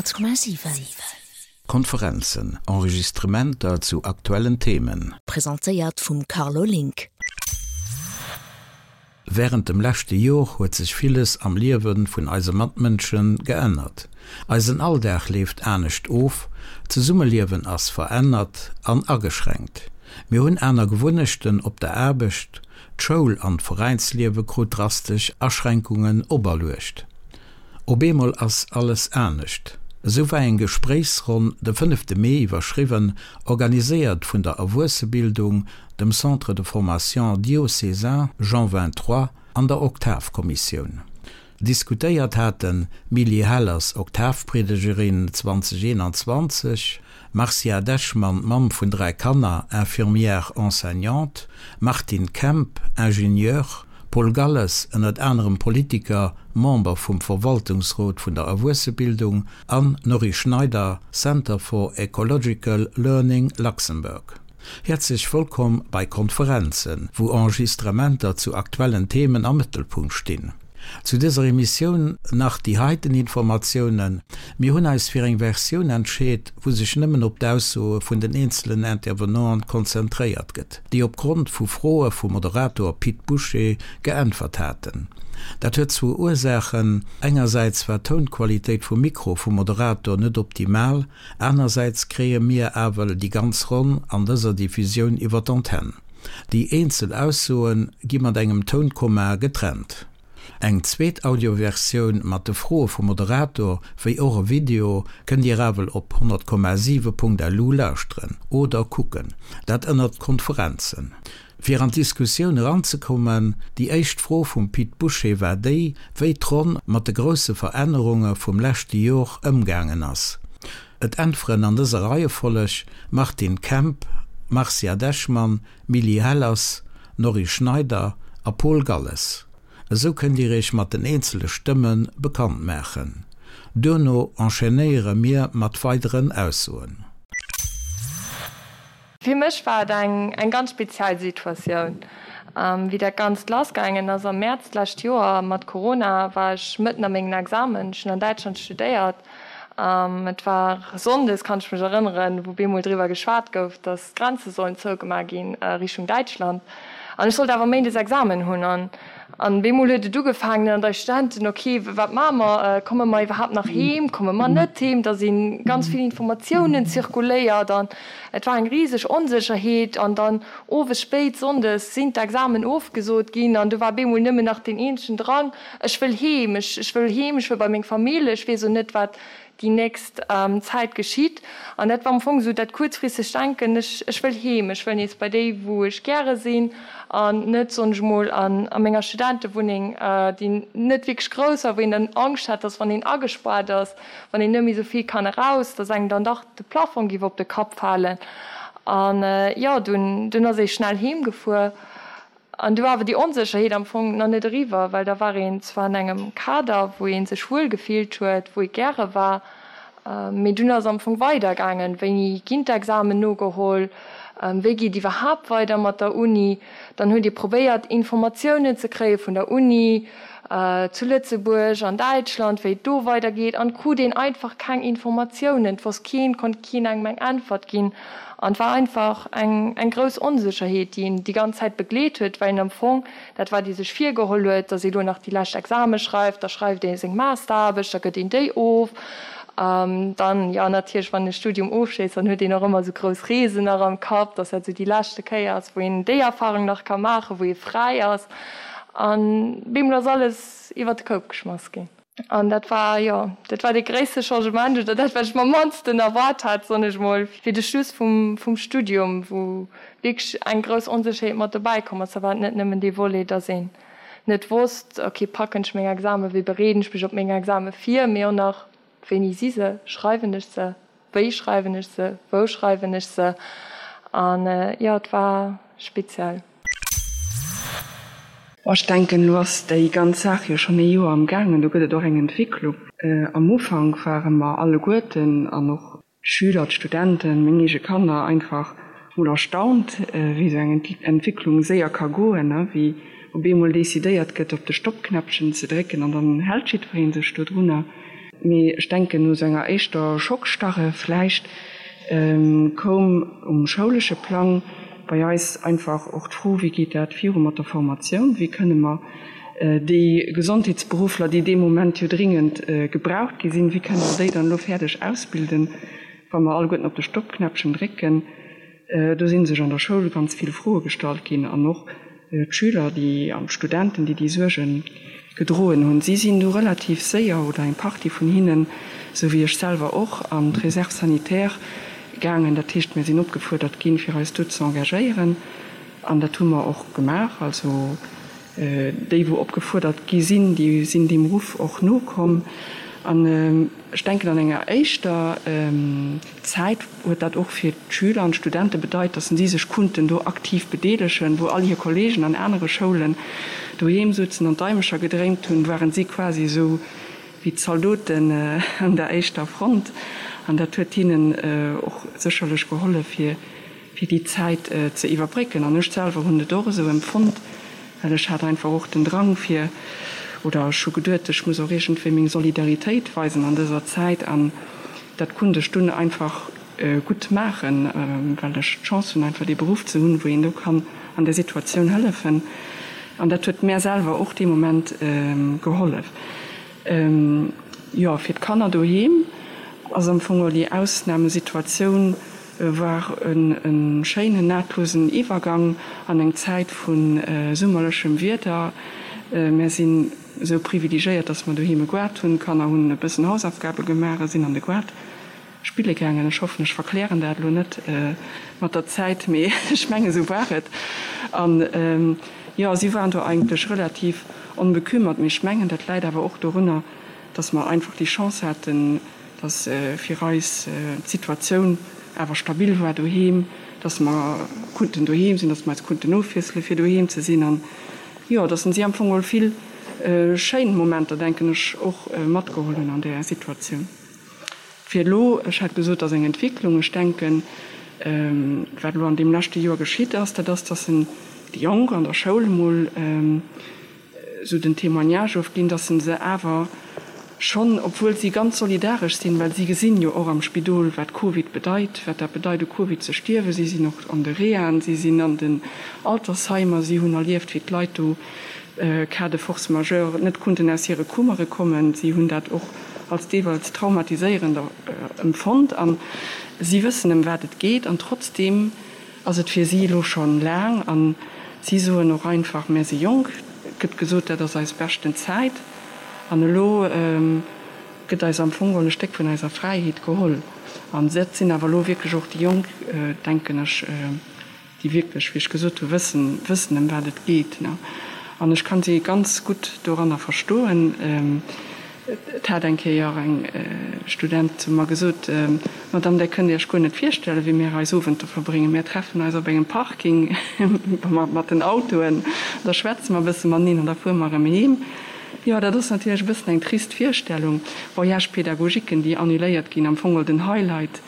100,7. Konferenzen, Enregistrementer zu aktuellen Themen. Presentéiert vum Carlo Link. Wärend dem leschte Jor huet sech villes am Liewe vun eise Matmënsche geännert. Eisen Alldag leeft anescht of, d'Zesummeliewen ass verännert an ageschränkt. Mir hunn aner Gewunnechten op der Aarbecht, d'Schoul an d'Veräinsliewe krut drastesch Aschränkungen operluecht. Op eemol ass alles anescht. Esou war eng Gespréichsronn de fënnefte Mee iwwerschriwwen, organiséiert vun der Erwuessebildung, dem Centre de formation diocésain Jean 23 an der Oktavkommissioun. Diskutéiert haten d'Milly Hellers, Oktavpriedegerin 2021, Marcia Dechmann, Mamm vun 3 Kanner, Infirmière enseignante, Martine Kemp, Ingenieur, Paul Galles, ënnert anerem Politiker, Member vum Verwaltungsrot vun der Erwuessebildung, an Norry Schneider, Center for Ecological Learning Luxembourg. Häerzlech wëllkomm bei Konferenzen, wou Enregistrementer zu aktuellen Themen am Mëttelpunkt stinn. Zu dëser Emissioun nach déi heiten Informatiounen, Mir hunn eis fir eng Versioun entscheet, wou sech nëmmen op d'Aussoe vun den eenzelen Intervenanten konzentréiert gëtt, déi op Grond vu Froe vum Moderator Pit Bouché geäntwert haten. Dat huet zwou Ursaachen, Engersäits war d'Tounqualitéit vum Mikro vum Moderator net optimal, anersäits kréie mir awel déi ganz Ronn an dëser Diffusioun iwwer d'Antenn. Déi eenzel Aussoe gi mat engem Tounkomma getrennt. Eng zweet Audioversioun mat de Froe vum Moderator, wéi och e Video, kënnt Dir ewell op 100,7.lu lauschteren oder kucken, dat ënnert Konferenzen. Fir an d'Diskussioun eranzekommen, déi éischt Fro vum Pit Bouché war déi, wéi d'Ronn mat de grousse Verännerunge vum leschte Jor ëmgaangen ass. Et äntweren an dëser Reiefolleg, Martine Kemp, Marcia Dechmann, Milly Hellers, Norry Schneider a Paul Galles. Esou kënnt Dir Iech mat den eenzele Stëmme bekannt maachen. Duerno enchaînéiere mir mat weideren Aussoen. Fir mech war et eng eng ganz speziell Situatioun. Wéi dat Ganzt lassgaangen ass am Mäerz d'lescht Joer mat Corona, war ech mëtten a mengen Examen. Ech hunn an Däitschland studéiert. Et war sonndes, kann ech mech erënneren, wou bemol driwwer geschwat gouf, datt d'Grenze sollen zougemaach ginn Richtung Däitschland. An ech sollt awer méindes Examen hunn. An an bemol huet et ugefaangen an eis Studenten, ok, wat maache mer, komme mer iwwerhaapt nach heem, komme mer net heem? Da si ganz vill Informatiounen zirkuléiert an et war eng riseg Onsécherheet. An dann owes spéit sonndes sinn d'Examen ofgesot ginn an du war bemol nëmmen nach deen eenzegen Drang, Ech wëll heem, ech ech wëll heem, ech wëll bei meng Famill, ech weess o net, wat déi nächst Zäit geschitt. An dat war am Fong esou dat kuerzfristegt Denken, ech ech wëll heem, ech wëll nees bei déi, wou ech gäre sinn an net, soen ech emol, an a menger Studentewunneng, déi net wierklech grouss war, wou een dann Angscht hat, dass wann een agespaart ass, wann een net méi esou vill kann eraus, dass engem dann dach de Plafong géif op de Kapp falen. An jo, dunn dunn ass ee schnell heem gefuer. An du war awer déi Onsécherheet am Fong nach net eriwwer, well da war een zwar an engem Kader, wou ee sech wuel gefillt huet, wou ee gäre war, mee dunn ass am Fong weidergaangen, Wéini ginn d'Examen nogeholl, wéi geet iwwerhaapt weider mat der Uni? Dann huet ee probéiert, Informatiounen ze kréie vun der Uni zu Lëtzebuerg, an Däitschland, wéi et do weidergeet, an krut een einfach keng Informatiounen. Et wosst keen, konnt keen engem eng Äntwert ginn. An et war einfach eng eng grouss Onsécherheet, déi een déi ganz Zäit begleet huet, well een am Fong, dat wat ee sech virgeholl huet, datt ee lo nach déi lescht Exame schreift, da schreift ee seng Masteraarbecht, da gëtt een déi of. Dann, jo natierlech, wann een e Studium ofschléisst, dann huet een och ëmmer esou grouss Reesen nach am Kapp, datt dat esou déi leschte Kéier ass, wou een déi Erfarung nach ka maachen, wou ee fräi ass. An bemol ass alles iwwer de Koup geschmass ginn. An dat war, jo, dat war dee gréisste Changement oder dat, wat ech mer am mannsten erwaart hat, soen ech mol, fir de Schluss vum, vum Studium, wou wierklech eng grouss Onsécherheet mat dobäi komm ass. Da war et net nëmmen dee Volet, dass een net wosst, okay, packen ech meng Examen, wéi bereeden ech mech op meng Exame vir, mee och nach, wéini si se, schreiwen ech se, wéi schreiwen ech se, wou schreiwen ech se. An, jo, et war speziell. Bon, ech denken, elo ass déi ganz Saach jo schonn ee Joer am gaangen, do gëtt et och eng Entwécklung. Am Ufank ware mer alleguerten, an och d'Schüler, d'Studenten, meng eege Kanner, einfach mol erstaunt, wéi esou eng Entwécklung séier ka goen, wéi op eemol decidéiert gëtt, op de Stoppknäppchen ze drécken an dann hält jiddweree sech dodrunner. Mee ech denken, no esou enger éischter Schockstarre vläicht, koum um schoulesche Plang bei eis einfach och d'Fro, Wéi geet dat viru mat der Formatioun? Wéi kënne mer déi Gesondheetsberuffler, déi dee Moment jo dringend gebraucht gi sinn, wéi kënne mer déi dann elo fäerdeg ausbilden, wa mer alleguerten op de Stoppknäppchen drécken? Do si sech an der Schoul ganz vill Froe gestallt ginn an och d'Schüler déi an d'Studenten, déi déi Suerge gedroen hunn. Si sinn du relativ séier, oder eng Partie vun hinnen, esou wéi ech selwer och, an d'Réserve sanitaire gaangen. Dat heescht, mir sinn opgefuerdert ginn, fir eis do ze engagéieren an dat hu mer och gemaach. Also déi, wou opgefuerdert gi sinn, déi sinn deem Ruff och nokomm. An ech denken, an enger éischter Zäit huet dat och fir d'Schüler an d'Studente bedeit, datt si sech kunnten do aktiv bedeelegen. Wou all hir Kolleegen an anere Schoulen doheem sutzen an d'Daimecher gedréint hunn, waren si quasi esou wéi d'Zaldoten an der éischter Front. An dat huet hinnen och sécherlech gehollef, fir fir déi Zäit ze iwwerbrécken. An ech selwer hunn et och esou empfonnt, well ech hat einfach och den Drang fir, oder ech hu geduet, ech muss och iergendwéi meng Solidaritéit weisen an dëser Zäit. An dat konnt ech dunn einfach gutt maachen, well ech d'Chance hunn einfach dee Beruff ze hunn, wou een do kann an där Situatioun hëllefen. An dat huet mär selwer och dee Moment gehollef. Jo, fir d'Kanner doheem ass am Fong och déi Ausnamesituatioun war e schéinen nahtlosen Iwwergang an eng Zäit vu summerlechem Wieder. Mär sinn esou privilegéiert, dass mer doheem e Goart hunn. D'Kanner hunn e bëssen Hausaufgabe gemaach a sinn an de Goart spille gaangen. Ech hoffen, ech verklären dat elo net mat der Zäit, mee ech mengen, esou war et. An jo, si waren do eigentlech relativ onbekümmert. Mee ech mengen, dat läit awer och dorunner, dass mer einfach déi Chance haten, dass fir eis d'Situatioun awer stabil war doheem, dass mer kunnten doheem sinn, dass mer eis kunnten ofwiessele fir doheem ze sinn an, jo, dass si am Fong geholl vill schéin Momenter, denken ech, och matgeholl hunn an där Situatioun. Fir elo, ech hat gesot, dass eng Entwicklung, ech denken, wat elo an deem leschte Joer geschitt ass, dat ass, dass en déi Jonk an der Schoul emol, esou den Témoignage ofginn, dass se se awer schonn, obwuel si ganz solidaresch sinn, well si gesinn jo och am Spidol, wat Covid bedeit, wat dat bedeit u Covid ze stierwen, si sinn och an de Rehaen, si sinn an den Altersheimer, si hunn erlieft, wéi d'Leit do cas de force majeure net kunnten aus hire Kummere kommen, si hunn dat och als deelweils traumatiséierend empfonnt a si wëssen, ëm wat et geet an trotzdeem Ass et fir si elo schonn laang an si soen och einfach, mär si jonk, et gëtt gesot, dat ass eis beschten Zäit an elo gëtt eis am Fong geholl e Stéck vun eiser Fräiheet geholl. An dat sinn awer elo wierklech och déi Jonk, denken ech, déi wierklech, wéi ech gesot hu, wëssen, wëssen ëm wat et geet. An ech kann si ganz gutt doranner verstoen. Et hat eng Kéier eng Student zu mer gesot, Madame, där kënnt Iech guer net virstellen, wéi mir eis Owenter verbréngen. Mir treffen eis op engem Parking mat den Autoen, da schwätze mer e bësse mateneen an da fuere mer erëm heem. Jo, dat ass natierlech e bëssen eng trist Virstellung. Voyages pédagogiquen, déi annuléiert ginn, am Fong den Highlight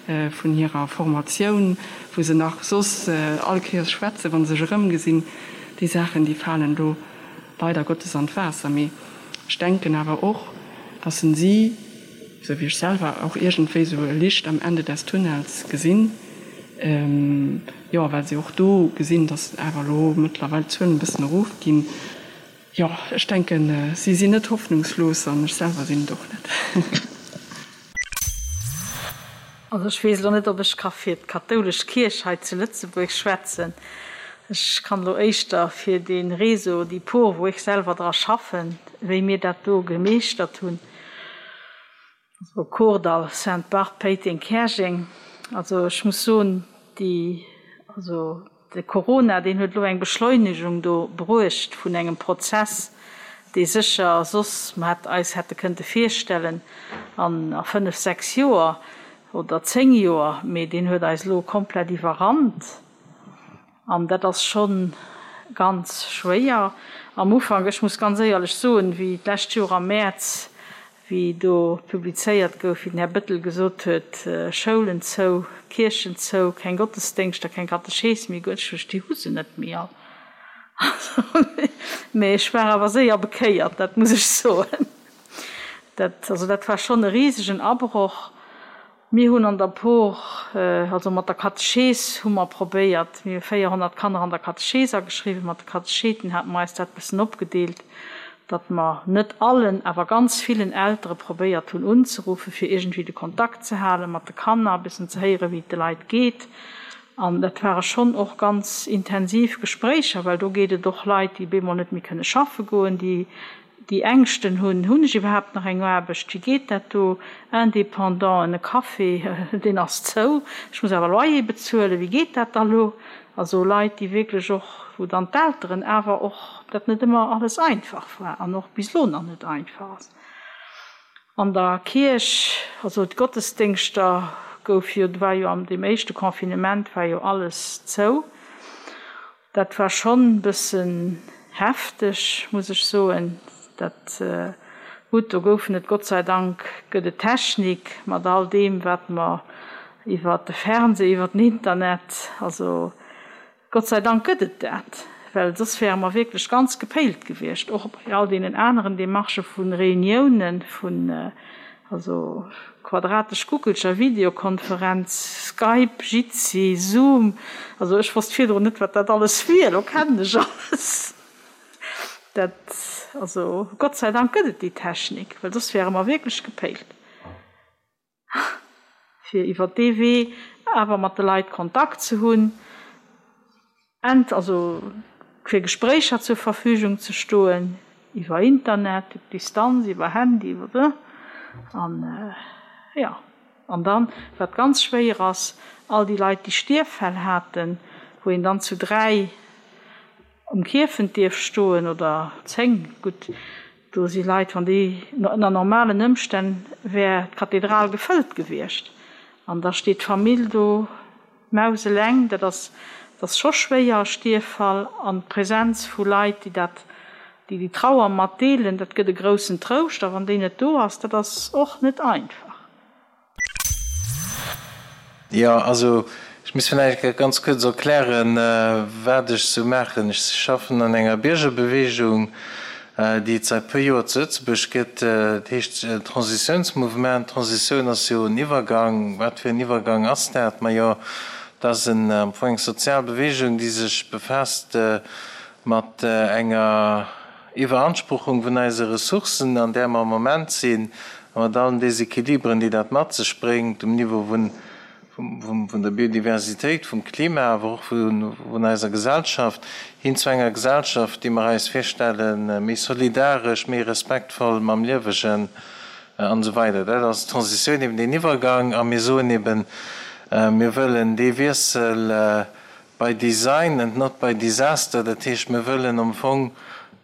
vun hirer Formatioun, wou se nach soss all Kéiers schwätzen, wa se sech erëmgesinn. Déi Saachen, déi falen do leider Gottes an d'Waasser. Mee Ech denken awer och, dass en si, esou wéi ech selwer, och iergendwéi esou e Licht am Ende des Tunnels gesinn, jo, well si och do gesinn, dass awer elo mëttlerweil d'Zuelen e bëssen erofginn. Jo, ech denken, si sinn net hoffnungslos an ech selwer sinn et och net. Also ech weess elo net, ob ech ka fir d'kathoulesch Kierch hei zu Lëtzebuerg schwätzen. Ech kann elo éischter fir dee Réseau, déi Por, wou ech selwer dra schaffen, wéi mir dat do gemeeschtert hunn, also Kordall, Sainte-Barthe, Péiteng, Käerjeng. Also ech muss soen, déi, also De Corona, deen huet elo eng Beschleunegung do bruecht vun engem Prozess, dee sécher soss mer hätt eis hätte kënnte virstellen an a fënnf, sechs Joer oder zéng Joer, mee deen huet eis elo komplett iwwerrannt. An dat ass scho ganz schwéier. Am Ufank, ech muss ganz éierlech soen, wéi d'lescht Joer am Mäerz wéi do publizéiert gouf, wéi den Här Bettel gesot huet, Schoulen zou, Kierchen zou, keng Gottesdéngschter, keng Katechees méi, guer ech déi hu se net méi all. Mee ech war awer séier bekéiert, dat muss ech soen. Dat, also dat war schonn e risegen Abroch. Mir hunn an der Por, also mat der Katechees hu mer probéiert, mir hu 400 Kanner an der Katechees ageschriwwen, mat de Katecheeten hate mer eis dat bëssen opgedeelt, datt mer net allen, awer ganz villen Eltere probéiert hunn unzeruffen, fir iergendwéi de Kontakt ze hale mat de Kanner, e bëssen ze héieren, wéi et de Leit geet. An dat ware schonn och ganz intensiv Gespréicher, well do geet et och Leit, déi bemol net méi kënne schaffe goen, déi déi Ängschten hunn, Hunn ech iwwerhaapt nach eng Aarbecht, wéi geet dat do, Indépendanten, e Café, deen ass zou, ech muss awer Loyer bezuelen, wéi geet dat da lo? Also Leit, déi wierklech och, wou dann d'Elteren awer och dat net ëmmer alles einfach war an och bis elo nach net einfach ass. An der Kierch, also d'Gottesdéngschter gouf jo, war jo an deem éischte Confinement war jo alles zou. Dat war schonn bëssen hefteg, muss ech soen. Dat, gutt, do goufen et, Gott sei Dank gëtt et Technik mat all deem, wat mer iwwer de Fernseh, iwwer den Internet, also Gott sei Dank gëtt et dat, well soss wäre mer wierklech ganz gepéilt gewiescht, och bei all deenen aneren Demarchë vu Reuniounen, vun also quadratesch Guckelcher, Videokonferenz, Skype, Jitsi, Zoom, also ech wosst virdrun net, wat dat alles wier, elo kennen ech alles. Dat, also Gott sei Dank gëtt et déi Technik, well soss wäre mer wierklech gepéilt. Fir iwwer dee Wee awer mat de Leit Kontakt ze hunn, ent also fir Gespréicher zur Verfügung ze stoen, iwwer Internet, op Distanz, iwwer Handy, iwwer an jo. An dann, wat ganz schwéier ass, all déi Leit, déi Stierffäll haten, wou een dann zu 3 um Kierfent dierf stoen oder 10, gutt, do si Leit, wann déi, ënner normalen Ëmstänn wär d'Kathedral gefëllt gewiescht an da steet d'Famill do mauseleng. Dat ass, dat ass scho schwéier, e Stierffall an d'Präsenz vu Leit, déi dat, déi déi Trauer mat deelen, dat gëtt e groussen Trouscht a wann déi net do ass, dat ass och net einfach. Jo, also ech muss vläicht ganz kuerz erklären, wat ech sou maachen. Ech schaffen an enger Biergerbeweegung, déi et säit puer Joer zu Lëtzebuerg gëtt. Dat heescht Transitiounsmouvement. Transitioun ass jo en Iwwergang. Wat fir en Iwwergang ass dat? Majo, dat ass am Fong eng sozial Beweegung, déi sech befaasst mat enger Iwweranspruchung vun eise Ressourcen, an där mer am Moment sinn, a mat allen Desequilibren, déi dat mat sech bréngt um Niveau vun der Biodiversitéit, vum Klima, awer och vun eiser Gesellschaft, hin zu enger Gesellschaft, déi mer eis virstellen, méi solidaresch, méi respektvoll mam Liewegen an esou weider. Dat ass d'Transitioun, eben deen Iwwergang. A mir soen eben, mir wëllen dee Wiessel By design and not by disaster, dat heescht mir wëllen am Fong,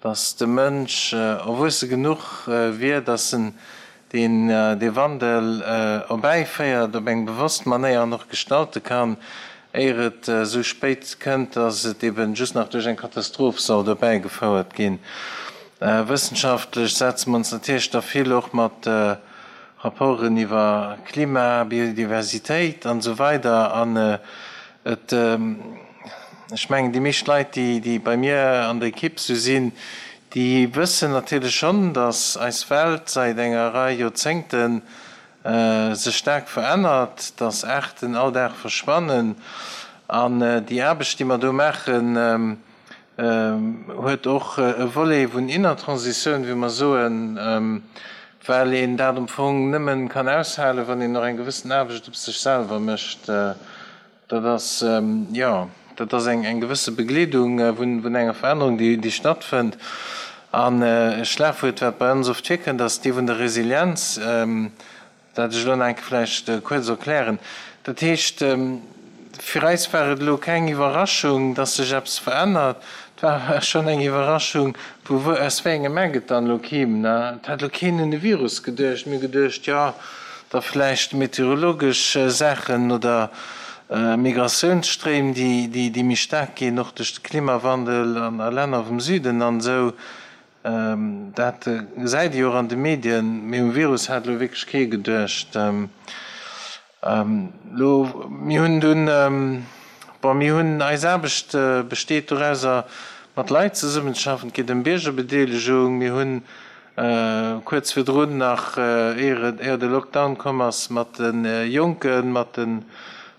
datt de Mënsch erwuesse genuch wier, datt en deen dee Wandel erbäiféiert op eng bewosst Manéier an och gestalte kann, éier et esou spéit kënnt, datt et eben just nach duerch eng Katastroph soll erbäigefouert ginn. Wëssenschaftlech setze mer ons natierlech da vill och mat Rapporten iwwer Klima, Biodiversitéit an esou weider an Et, ech mengen, déi meescht Leit, déi, déi bei mir an der Ekipp sou sinn, déi wëssen natierlech schonn, datt eis Welt säit enger Rei Joerzéngte sech staark verännert, datt Aarten all Dag verschwannen. An déi Aarbecht, déi mer do maachen, huet och e Volet vun inner Transitioun, wéi mer soen, well een dat am Fong nëmmen kann aushalen, wann een och eng gewëssen Aarbecht op sech selwer mécht. Dat ass, jo, dat ass eng gewësse Begleedung vun enger Verännerung, déi stattfënnt. An e Schlagwuert, wat bei ons oft virkënnt, ass dee vun der Resilienz. Dat ech elo nach eng Kéier vläicht kuerz erklären. Dat heescht, fir eis war et elo keng Iwwerraschung, dass sech eppes verännert. Et war awer schonn eng Iwwerraschung, vu wou, aus wéi engem Eck et dann elo kimm. Et hat elo keen un e Virus geduecht. Mir hu geduecht, jo, da vläicht meteorologesch Saachen oder Migratiounsstréim, déi méi staark ginn, och duerch de Klimawandel an a Länner vum Süden an esou. Dat gesäit ee jo och an de Medien, mee um Virus hat elo wierklech kee geduecht. Elo, mir hunn dunn, bon, mir hunn, eis Aarbecht besteet dorauser, mat Leit zesummenzeschaffen. Et geet ëm Biergerbedeelegung. Mir hunn. Kuerz virdrun nach, éier de Lockdown komm ass, mat de Jonken, mat de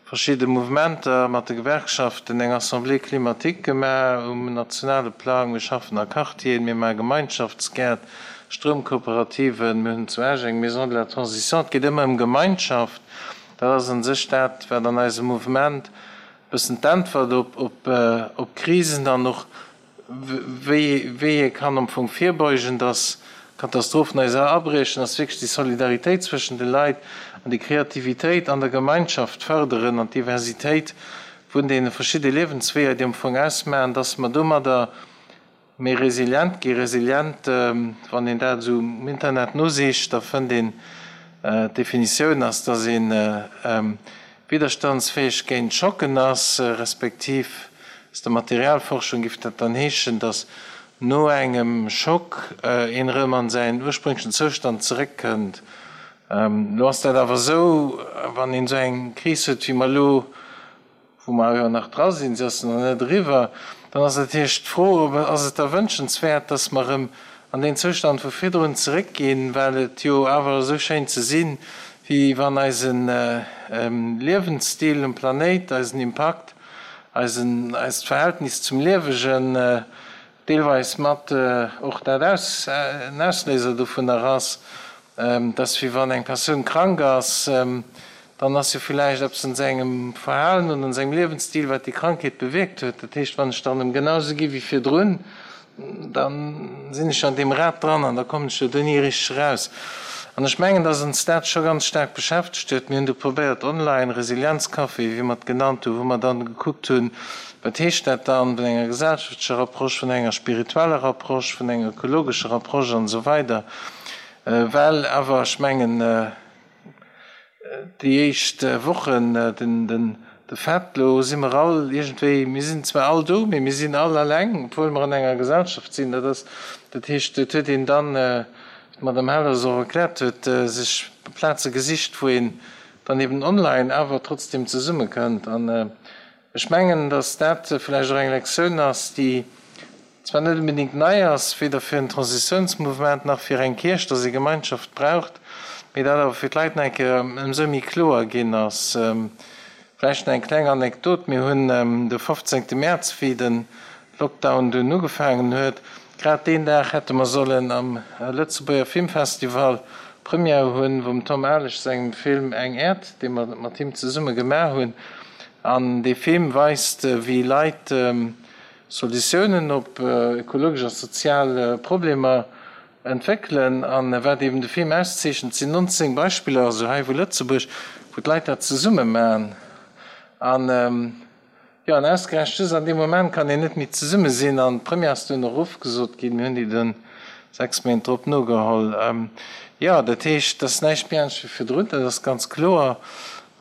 verschidde Mouvementer, mat de Gewerkschaften eng Assemblée climatique gemaach um nationale Plang. Mir schaffen a Quartieren, mir maache Gemeinschaftsgäert, Stroumkooperativen, mir hunn zu Esch eng Maison de la Transition. Et geet ëmmer ëm Gemeinschaft. Dat ass a sech dat, wat an eisem Mouvement e bëssen d'Äntwert op Krisen an och wéi ee kann am Fong virbeugen, dass Katastrophen eis abriechen, ass wierklech déi Solidaritéit zwëschen de Leit an déi Kreativitéit an der Gemeinschaft fërderen an d'Diversitéit vun deene verschidde Liewensweeër, déi am Fong ausmachen, dass mer domadder méi resilient ginn. Resilient, wann een dat esou um Internet nosicht, da fënnt een, d'Definitioun ass, dass ee widderstandsfäeg géint Schocken ass, respektiv aus der Materialforschung giff dat dann heeschen, dass no engem Schock een erëm an säin ursprünglechen Zoustand zeréckkënnt. Elo ass dat awer esou, wann een esou eng Kris huet wéi mer elo, wou mer jo nach dra sinn, se ass nach net eriwwer, dann ass natierlech d'Fro, ob ass et da wënschenswäert, dass mer erëm an deen Zoustand vu virdrun zeréckginn, well et jo awer esou schéint ze sinn, wéi wann eise Liewensstil um Planéit, eisen Impakt, eisen, eist Verhältnis zum Liewegen deelweis mat och dat aus, en Ausléiser dovunner ass, dass wéi wann eng Persoun krank ass, dann ass jo villäicht eppes an sengem Verhalen oder an sengem Liewensstil, wat déi Krankheet bewierkt huet. Dat heescht, wann ech dann erëm genau esou gi wéi virdrun, Da sinn ech an deem Rad dran an da kommen ech jo do ni richteg eraus. An ech mengen, dass ons dat scho ganz staark beschäftegt huet. Mir hunn do probéiert online Resilienzcafé, wéi mer et genannt hunn, wou mer dann gekuckt hunn, wat heescht dat dann vun enger gesellschaftlecher Approche, vun enger spiritueller Approche, vun enger ökologescher Approche an esou weider. Well awer, ech mengen, Déi éischt Wochen, den de Fait, lo si mer all iergendwéi, mir sinn zwar all do, mee mir sinn all alleng, obwuel mer an enger Gesellschaft sinn. Dat ass, dat heescht, et huet een dann, wéi d'Madame Hellers och erkläert huet, sech Plaze gesicht, wou een dann eben online awer trotzdem zesummekënnt. An ech mengen, datt dat vläicht och eng Lektioun ass, déi zwar net onbedéngt nei ass, weder fir en Transitiounsmouvement nach fir eng Kierch, dass ee Gemeinschaft braucht, mee dat awer fir d'Leit nach eng Kéier ëmsou méi kloer ginn ass. Vläicht nach eng kleng Anekdot, Mir hunn de 15. Mäerz, wéi de Lockdown dunn ugefaangen huet, grad deen Dag hätte mer sollen am Lëtzebuerger Filmfestival Première hunn vum Tom Alesch sengem Film Eng Äerd, dee mer mat him zesumme gemaach hunn. An dee Film weist, wéi Leit Solutiounen op ökologesch a sozial Problemer entwéckelen. An wat eben de Film auszeechent, sinn 19 Beispiller, also hei vu Lëtzebuerg, wou d'Leit dat zesumme maachen. An jo, an ausgerechent just an deem Moment kann een net méi zesumme sinn. An d'Première ass dunn och ofgesot ginn. Mir hunn déi dunn 6 Méint drop nogeholl. Jo, dat heescht, et ass näischt méi anescht wéi virdrun, dat ass ganz kloer.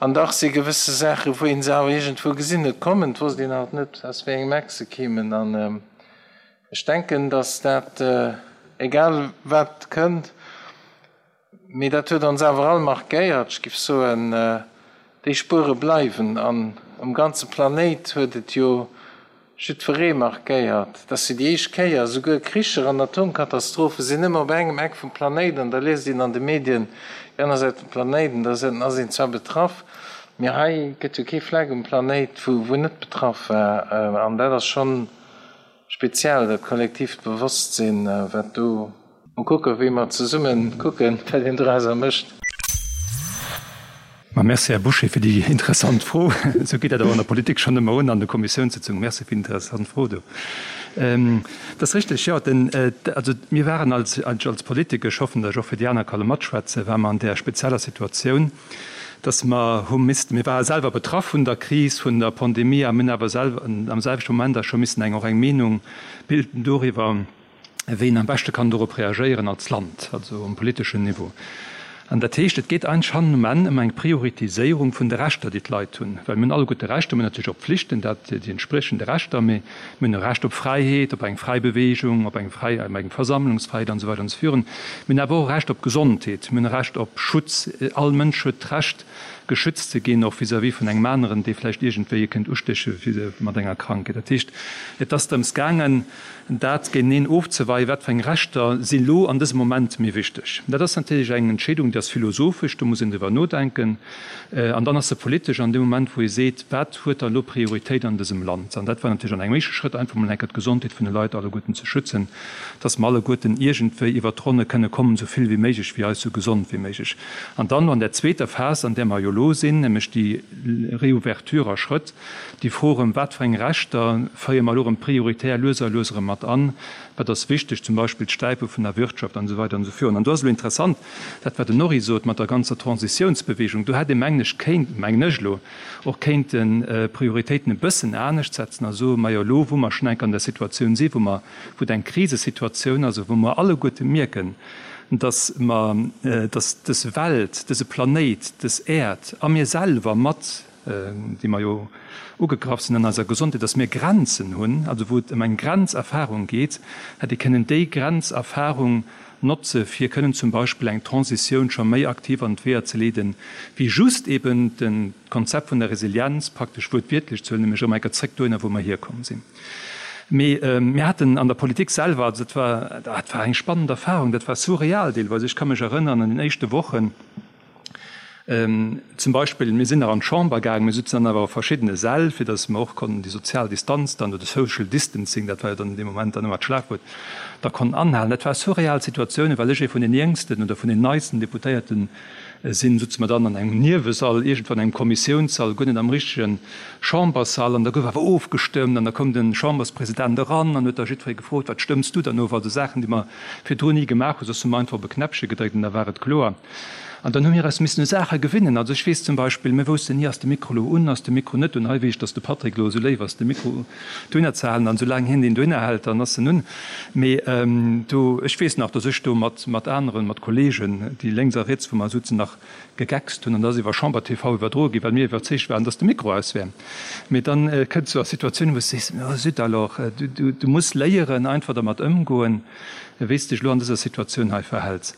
An dach si gewësse Saachen, wou een se awer iergendwou gesinn huet kommen, et wosst een halt net, aus wéi engem Eck se keemen. An ech denken, datt dat, egal wat kënnt, mee dat huet ons awer all markéiert, ech géif soen, déi Spuere bleiwen. An um ganze Planéit huet et jo Jiddweree markéiert, dass se déi éischt Kéier, esouguer Kricher an Atomkatastrophe sinn ëmmer op engem Eck vum Planéit an da liest een an de Medien déi aner Säit vum Planéit an da ass een zwar betraff, mee hei gëtt jo kee Fleck um Planéit wou wou net betraff war an dat ass schonn speziell, dat kollektiivt Bewosstsinn wat do. Mol kucken, wéi mer zesummen kucken, wat een dorauser mécht. Ma merci, Här Bouché, fir déi interessant Fro. Esou geet dat awer an der Politik schonn ëmmer un, an de Kommissiounssitzungen. Merci fir déi interessant Fro do. Et ass richteg, jo, den, also mir waren als, als Politiker, ech hoffen, datt ech och fir déi aner ka lo matschwätzen, ware mer an där spezieller Situatioun, datt mer hu missten, mir ware selwer betraff vun der Kris, vun der Pandemie a mir hunn awer selwer am selwechte Moment da scho missen eng, och eng Meenung bilden doriwwer, wéi een am beschte kann dorop reagéieren als Land, also um politeschen Niveau. An dat heescht, et geet eigentlech hannen um Enn ëm eng Prioritiséierung vun de Rechter, déi d'Leit hunn. Well mir hunn alleguerte Rechter, mir hunn natierlech och Pflichten, dat déi entspriechende Rechter, mee mir hunn e Recht op Fräiheet, op eng fräi Bewegung, op eng fräi, op eng Versammlungsfräiheet an esou weider an esou virun. Mir hunn awer och e Recht op Gesondheet, mir hunn e Recht op Schutz. All Mënsch huet d'Recht. geschützt ze ginn, och vis-à-vis vun engem aneren, dee vläicht iergendwéi e kënnt ustéche mat enger Krankheet. Dat heescht, et ass drëms gaangen, dat géinteneen ofzeweien, wat fir eng Rechter si lo an dësem Moment méi wichteg. Dat ass natierlech eng Entscheedung, déi ass philosophesch, do muss een driwwer nodenken. An dann ass se politesch an deem Moment, wou ee seet, wat huet da lo Prioritéit an dësem Land? An dat war natierlech an engem éischte Schrëtt einfach mol eng Kéier d'Gesondheet vun de Leit alleguerten ze schützen, dass mer alleguerten iergendwéi iwwert d'Ronne kënne kommen, esou vill wéi méiglech, wéi eis esou gesond wéi méiglech. An dann an där zweeter Phas, an där mer jo elo sinn, nämlech déi Reouverture a Schrëtt, déi Fro erëm, wat fir eng Rechter féiere mer elo erëm prioritär lues a lues erëm mat an, wat ass wichteg, zum Beispill d'Stäipe vun der Wirtschaft an esou weider an esou virun. An do ass elo interessant, Dat wat den Norry sot mat der ganzer Transitiounsbewegung, do hätt ee mengen ech kéint, mengen ech elo, och kéinten d'Prioritéiten e bëssen anescht setzen a soen, majo elo wou mer schonn enk an der Situatioun si wou mer, wou et eng Krisesituatioun ass a wou mer alleguerte mierken, datt mer, datt dës Welt, dëse Planéit, dës Äerd a mir selwer mat, déi mer jo ugegraff sinn an eiser Gesondheet, dass mir Grenzen hunn, also wou et ëm eng Grenzerfahrung geet, hätt ee kënnen déi Grenzerfahrung notze fir kënnen zum Beispill eng Transitioun scho méi aktiv an d'Weeër ze leeden, wéi just eben de Konzept vun der Resilienz praktesch wuertwiertlech ze huelen, nämlech erëm eng Kéier zréck dohinner, wou mer hierkomm sinn. Mee mir haten an der Politik selwer, also dat war, dat war eng spannend Erfahrung, dat war surreal deelweis. Ech ka mech erënnern an den éischte Wochen, Zum Beispill, mir sinn nach an d'Chamber gaangen, mir sutzen dann awer a verschiddene Säll, fir datt mer och konnten déi sozial Distanz dann, oder Social Distancing, dat war jo dann an deem Moment dann ëmmer d'Schlagwuert, da konnten anhalen. Dat war surreal Situatiounen, well ech ee vun den jéngsten oder vun den neisten Deputéierte sinn, sutze mer dann an engem Niewesall, iergendwou an engem Kommissiounssall, guer net am richtege Chamberssall, an da gouf awer ofgestëmmt an da koum de Chamberspresident eran an huet da jiddweree gefrot, Wat stëmms du dann of? Also Saachen, déi mer virdrun ni gemaach hunn, soss hu mer einfach op e Knäppche gedréckt an da war et kloer. An dann hu mir eis missen u Saache gewinnen. Also ech weess zum Beispill, mir woussten ni, ass de Mikro elo un, ass de Mikro net un. Hei weess ech, dass de Patrick elo esou léif ass, de Mikro dohinner ze halen. An soulaang hien deen dohinner hält, dann ass en un. Mee do, ech weess nach, dass ech do mat, mat aneren, mat Kollegen, déi lénks a riets vu mer souzen, nach gegeckst hunn. An dat ass iwwer Chamber TV iwwerdroe ginn, well mir iwwerzeegt waren, dass de Mikro aus wär. Mee dann kënns du a Situatiounen, wou s de sees, oh zut alors, du, du, du muss léieren, einfach dermat ëmgoen, wéi s de dech elo an dëser Situatioun hei verhäls.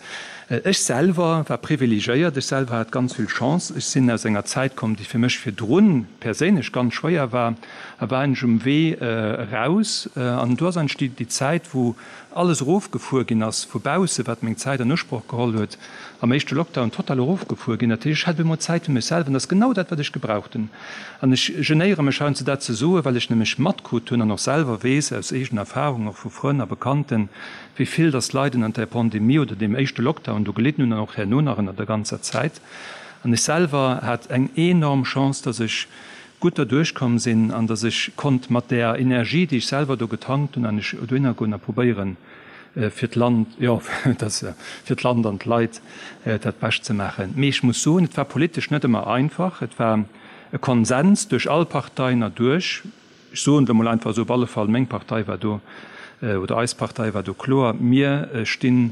Ech selwer war privilegéiert, ech selwer hat ganz vill Chance. Ech sinn aus enger Zäit komm, déi fir mech virdrun perséinlech ganz schwéier war, a war eigentlech um Wee eraus. An do ass eigentlech déi Zäit, wou alles erofgefuer ginn ass vu bausse, wat meng Zäit an Usproch geholl huet, am éischte Lockdown total erofgefuer ginn. Dat heescht, ech hat op eemol Zäit fir mech selwer an dat ass genau dat, wat ech gebraucht hunn. An ech genéiere mech heiansdo dat ze soen, well ech nämlech matkrut hunn an och selwer weess aus eegener Erfahrung, och vu Frënn a Bekannten, wéi vill dass Leit ënnert där Pandemie oder deem éischte Lockdown do gelidden hunn an och herno nach ënnert der ganzer Zäit. An ech selwer hat eng enorm Chance, dass ech gutt derduerch komm sinn an dass ech konnt mat där Energie, déi ech selwer do getankt hunn, an ech dohinner goen a probéieren, fir d'Land, jo, dass, fir d'Land an d'Leit dat Bescht ze maachen. Mee ech muss soen, et war politesch net ëmmer einfach. Et war e Konsens duerch all Parteien erduerch. Ech soen et emol einfach esou, op alle Fall meng Partei war do, oder eis Partei war do kloer, mir sti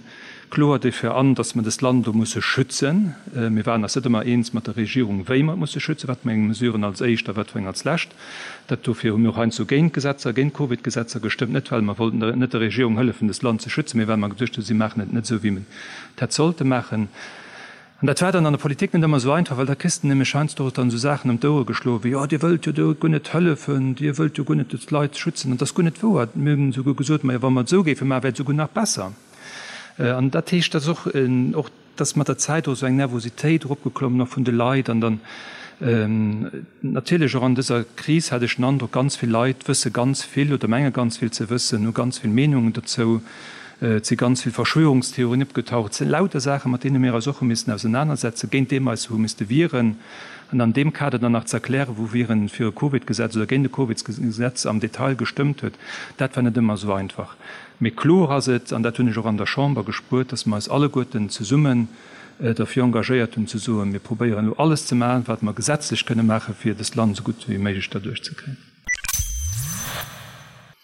kloer derfir an, datt mer dëst Land do musse schützen. Mir waren eis net ëmmer eens mat der Regierung, wéi mer et musse schützen, wat fir eng Mesuren als éischt a wat fir eng als lescht. Dat dofir hu mir och heiansdo géint Gesetzer, géint Covid-Gesetzer gestëmmt, net well mer wollten net der Regierung hëllefen, dëst Land ze schützen, mee well mer geduecht hunn, si maachen et net esou, wéi mer et hätt sollte maachen. An dat war dann an der Politik net ëmmer esou einfach, well da kriss de nämlech heiansdo och dann esou Saachen ëm d'Ouere geschloen, wéi, Jo, Dir wëllt jo do guer net hëllefen, Dir wëllt jo guer net d'Leit schützen. An dat ass guer net wouer. Mir hunn esouguer gesot, Majo, wa mer et esou géife maachen, wär et esouguer nach besser. An dat heescht, dass och, och dass mat der Zäit och esou eng Nervositéit eropgeklommen och vun de Leit. An dann natierlech och an dëser Kris hat ech den Androck, ganz vill Leit wësse ganz vill oder menge ganz vill ze wëssen, hu ganz vill Meenungen dozou. Et si ganz vill Verschwörungstheorien opgetaucht. Et si lauter Saachen, mat deene mir eis och hu missen ausenanersetzen, géint déi mer eis hu misste wieren. An an deem Kader dann nach ze erklären, wou wieren fir e Covid-Gesetz oder géint e Covid-Gesetz am Detail gestëmmt huet, dat war net ëmmer esou einfach. Mee kloer ass et, an dat hunn ech och an der Chamber gespuert, dass mer eis alleguerten zesummen derfir engagéiert hunn, ze soen, mir probéieren elo alles ze maachen, wat mer gesetzlech kënne maachen, fir dëst Land esou gutt wéi méiglech derduerch ze kréien.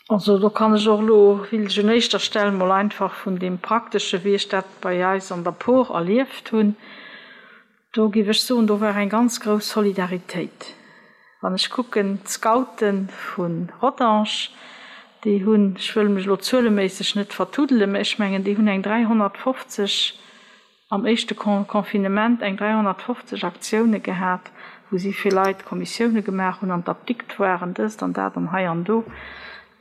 Also do kann ech och elo, wéilt ech un éischter Stell mol einfach vun deem Praktesche wéi ech dat bei eis an der Por erlieft hunn, do géif ech soen, do war eng ganz grouss Solidaritéit. Wann ech kucken, d'Scoute vu Rodange, déi hunn, ech wëll mech elo zueleméisseg net vertuddelen, mä ech mengen déi hunn eng 350. am éischte Confinement eng 350 Aktioune gehat, wou si fir Leit Kommissioune gemaach hunn, an d'Apdikt waren, dëst an dat an hei an do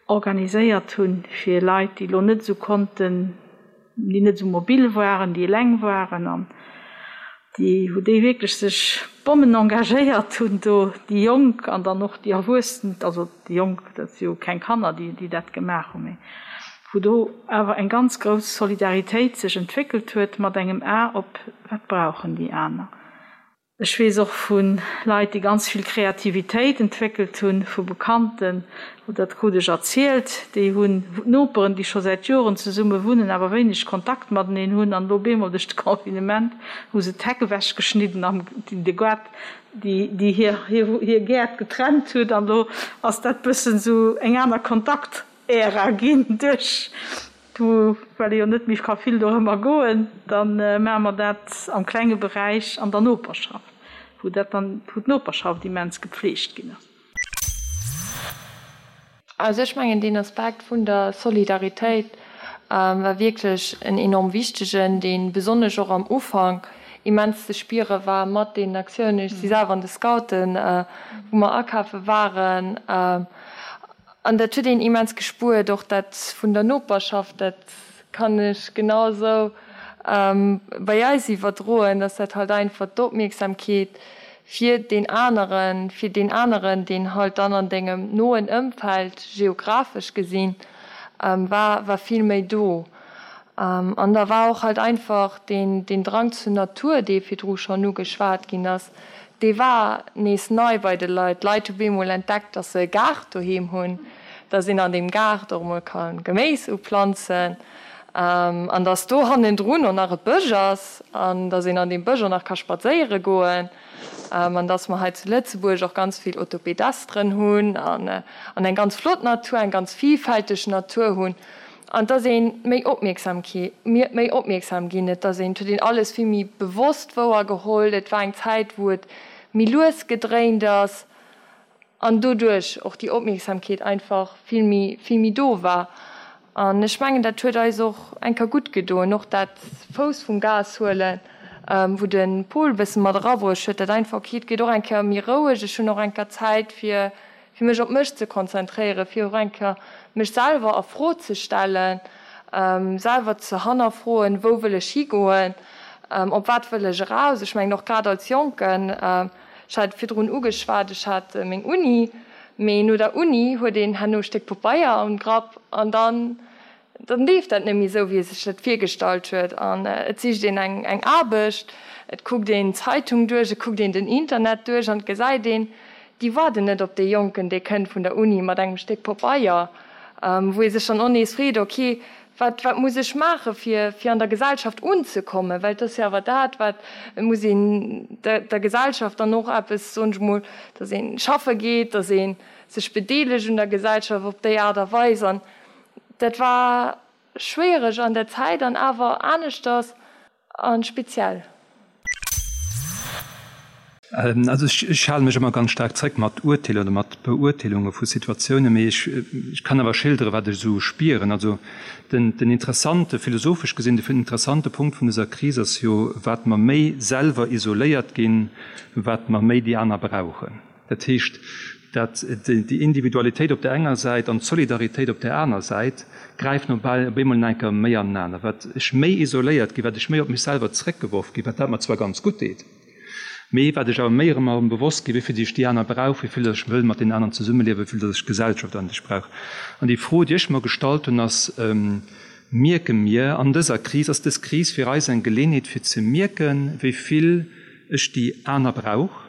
organiséiert hunn, fir Leit, déi elo net esou konnten, déi net esou mobil waren, déi eleng waren an déi, wou déi wierklech sech Bommen engagéiert hunn do, déi Jonk an dann och déi Erwuessen, also déi Jonk, dat si jo keng Kanner, déi, déi dat gemaach hunn, mee wou do awer eng ganz grouss Solidaritéit sech entwéckelt huet mat engem A op, wat brauchen déi aner. Ech weess och vu Leit, déi ganz vill Kreativitéit entwéckelt hunn, vu Bekannten, dat krut ech erzielt, déi hunn Noperen, déi scho säit Joren zesumme wunnen, awer wéineg Kontakt mateneen hunn, an elo bemol duerch de Confinement hu se d'Heck ewechgeschnidden an de Gaart, déi hir Gäert getrennt huet, an elo ass dat bëssen esou eng aner Kontakt-Ära ginn duerch Du, well ee jo net méi ka vill dorëmmer goen, da maache mer dat am klenge Beräich an der Noperschaft, wou dat dann, wou d'Noperschaft immens gepflegt ginn ass. Also ech mengen, deen Aspekt vun der Solidaritéit war wierklech en enorm wichtegen, dee besonnesch och am Ufank immens ze spiere war mat deenen Aktiounen. Ech si selwer an de Scouten, wou mer akafe waren. An dat huet een immens gespuert, och dat vun der Noperschaft, dat kann ech genau esou bei eis iwwerdroen, dass dat halt einfach d'Opmierksamkeet fir deen aneren, fir deen aneren, deen halt dann an dengem noen Ëmfeld geographesch gesinn war, war vill méi do. An da war och halt einfach deen, deen Drang zur Natur, dee virdru schonn ugeschwat ginn ass, dee war nees nei bei de Leit. D'Leit hu bemol entdeckt, dass se e Gaart doheem hunn, dass een an deem Gaart och emol ka Geméis uplanzen an dass do hannendrun och nach e Bësch ass an dass een an deem Bësch och nach ka spadséiere goen an dass mer hei zu Lëtzebuerg och ganz vill Autopedestren hunn an eng ganz flott Natur, eng ganz vielfälteg Natur hunn. An et ass ee méi opmierksam ki, méi opmierksam ginn. Et ass een, et huet een alles vill méi bewosst wouergeholl. Et war eng Zäit, wou et méi lues gedréint ass an doduerch och déi Opmierksamkeet einfach vill méi, vill méi do war. An ech mengen, dat huet eis och eng Kéier gutt gedoen, och dat Fouss vum Gas huelen, wou de Paul e bësse mat erabruecht huet, dat einfach, okay, et geet och eng Kéier méi roueg, ech hunn och eng Kéier Zäit fir fir mech op mech ze konzentréieren, fir och eng Kéier mech selwer a Fro ze stellen, selwer ze hannerfroen, wou wëll ech higoen, op wat wëll ech eraus. Ech mengen och grad als Jonken, ech hat et virdrun ugeschwat, ech hat meng Uni, mee no der Uni huet een herno e Stéck Pabeier am Grapp an dann Dann leeft dat net méi esou, wéi e sech dat virgestallt huet an et sicht een eng eng Aarbecht, et kuckt een d'Zeitung duerch, et kuckt een den Internet duerch an et gesäit een, déi waarden net op dee Jonken, dee kënnt vun der Uni mat engem Stéck Pabeier, wou ee sech dann och nees freet, ok, wat wat muss ech maache fir fir an der Gesellschaft unzekommen, well et ass jo awer dat, wat, et muss een der der Gesellschaft dann och eppes, soen ech mol, datt ee schaffe geet, datt ee sech bedeelegt un der Gesellschaft op déi Aart a Weis an Dat war schwiereg an der Zäit an awer aneschters a speziell. Also ech hale mech ëmmer ganz staark zréck mat Urteeler oder mat Beurteelunge vu Situatiounen, mee ech kann awer schildere wat ech esou spieren. Also den den interessante, philosophesch gesinn, de interessante Punkt vun dëser Kris ass jo, wat mer méi selwer isoléiert ginn, wat mer méi déi aner brauchen. Dat heescht, dat déi Individualitéit op där enger Säit an d'Solidaritéit op där aner Säit gräifen op eemol nach eng Kéier méi anenaner. Wat ech méi isoléiert ginn, wat ech méi op mech selwer zréckgeworf ginn, wat dat mer zwar ganz gutt deet, mee wat ech awer méi erëm erëm bewosst ginn, wéi vill ech déi aner brauch, wéi vill ech wëll mat deenen aneren zesummeliewen, wéi vill datt ech d'Gesellschaft an sech brauch. An déi Fro, déi ech mer gestallt hunn, ass, Mierke mir an dëser Kris, ass dës Kris fir eis eng Geleenheet fir ze mierken, wéi vill ech déi aner brauch?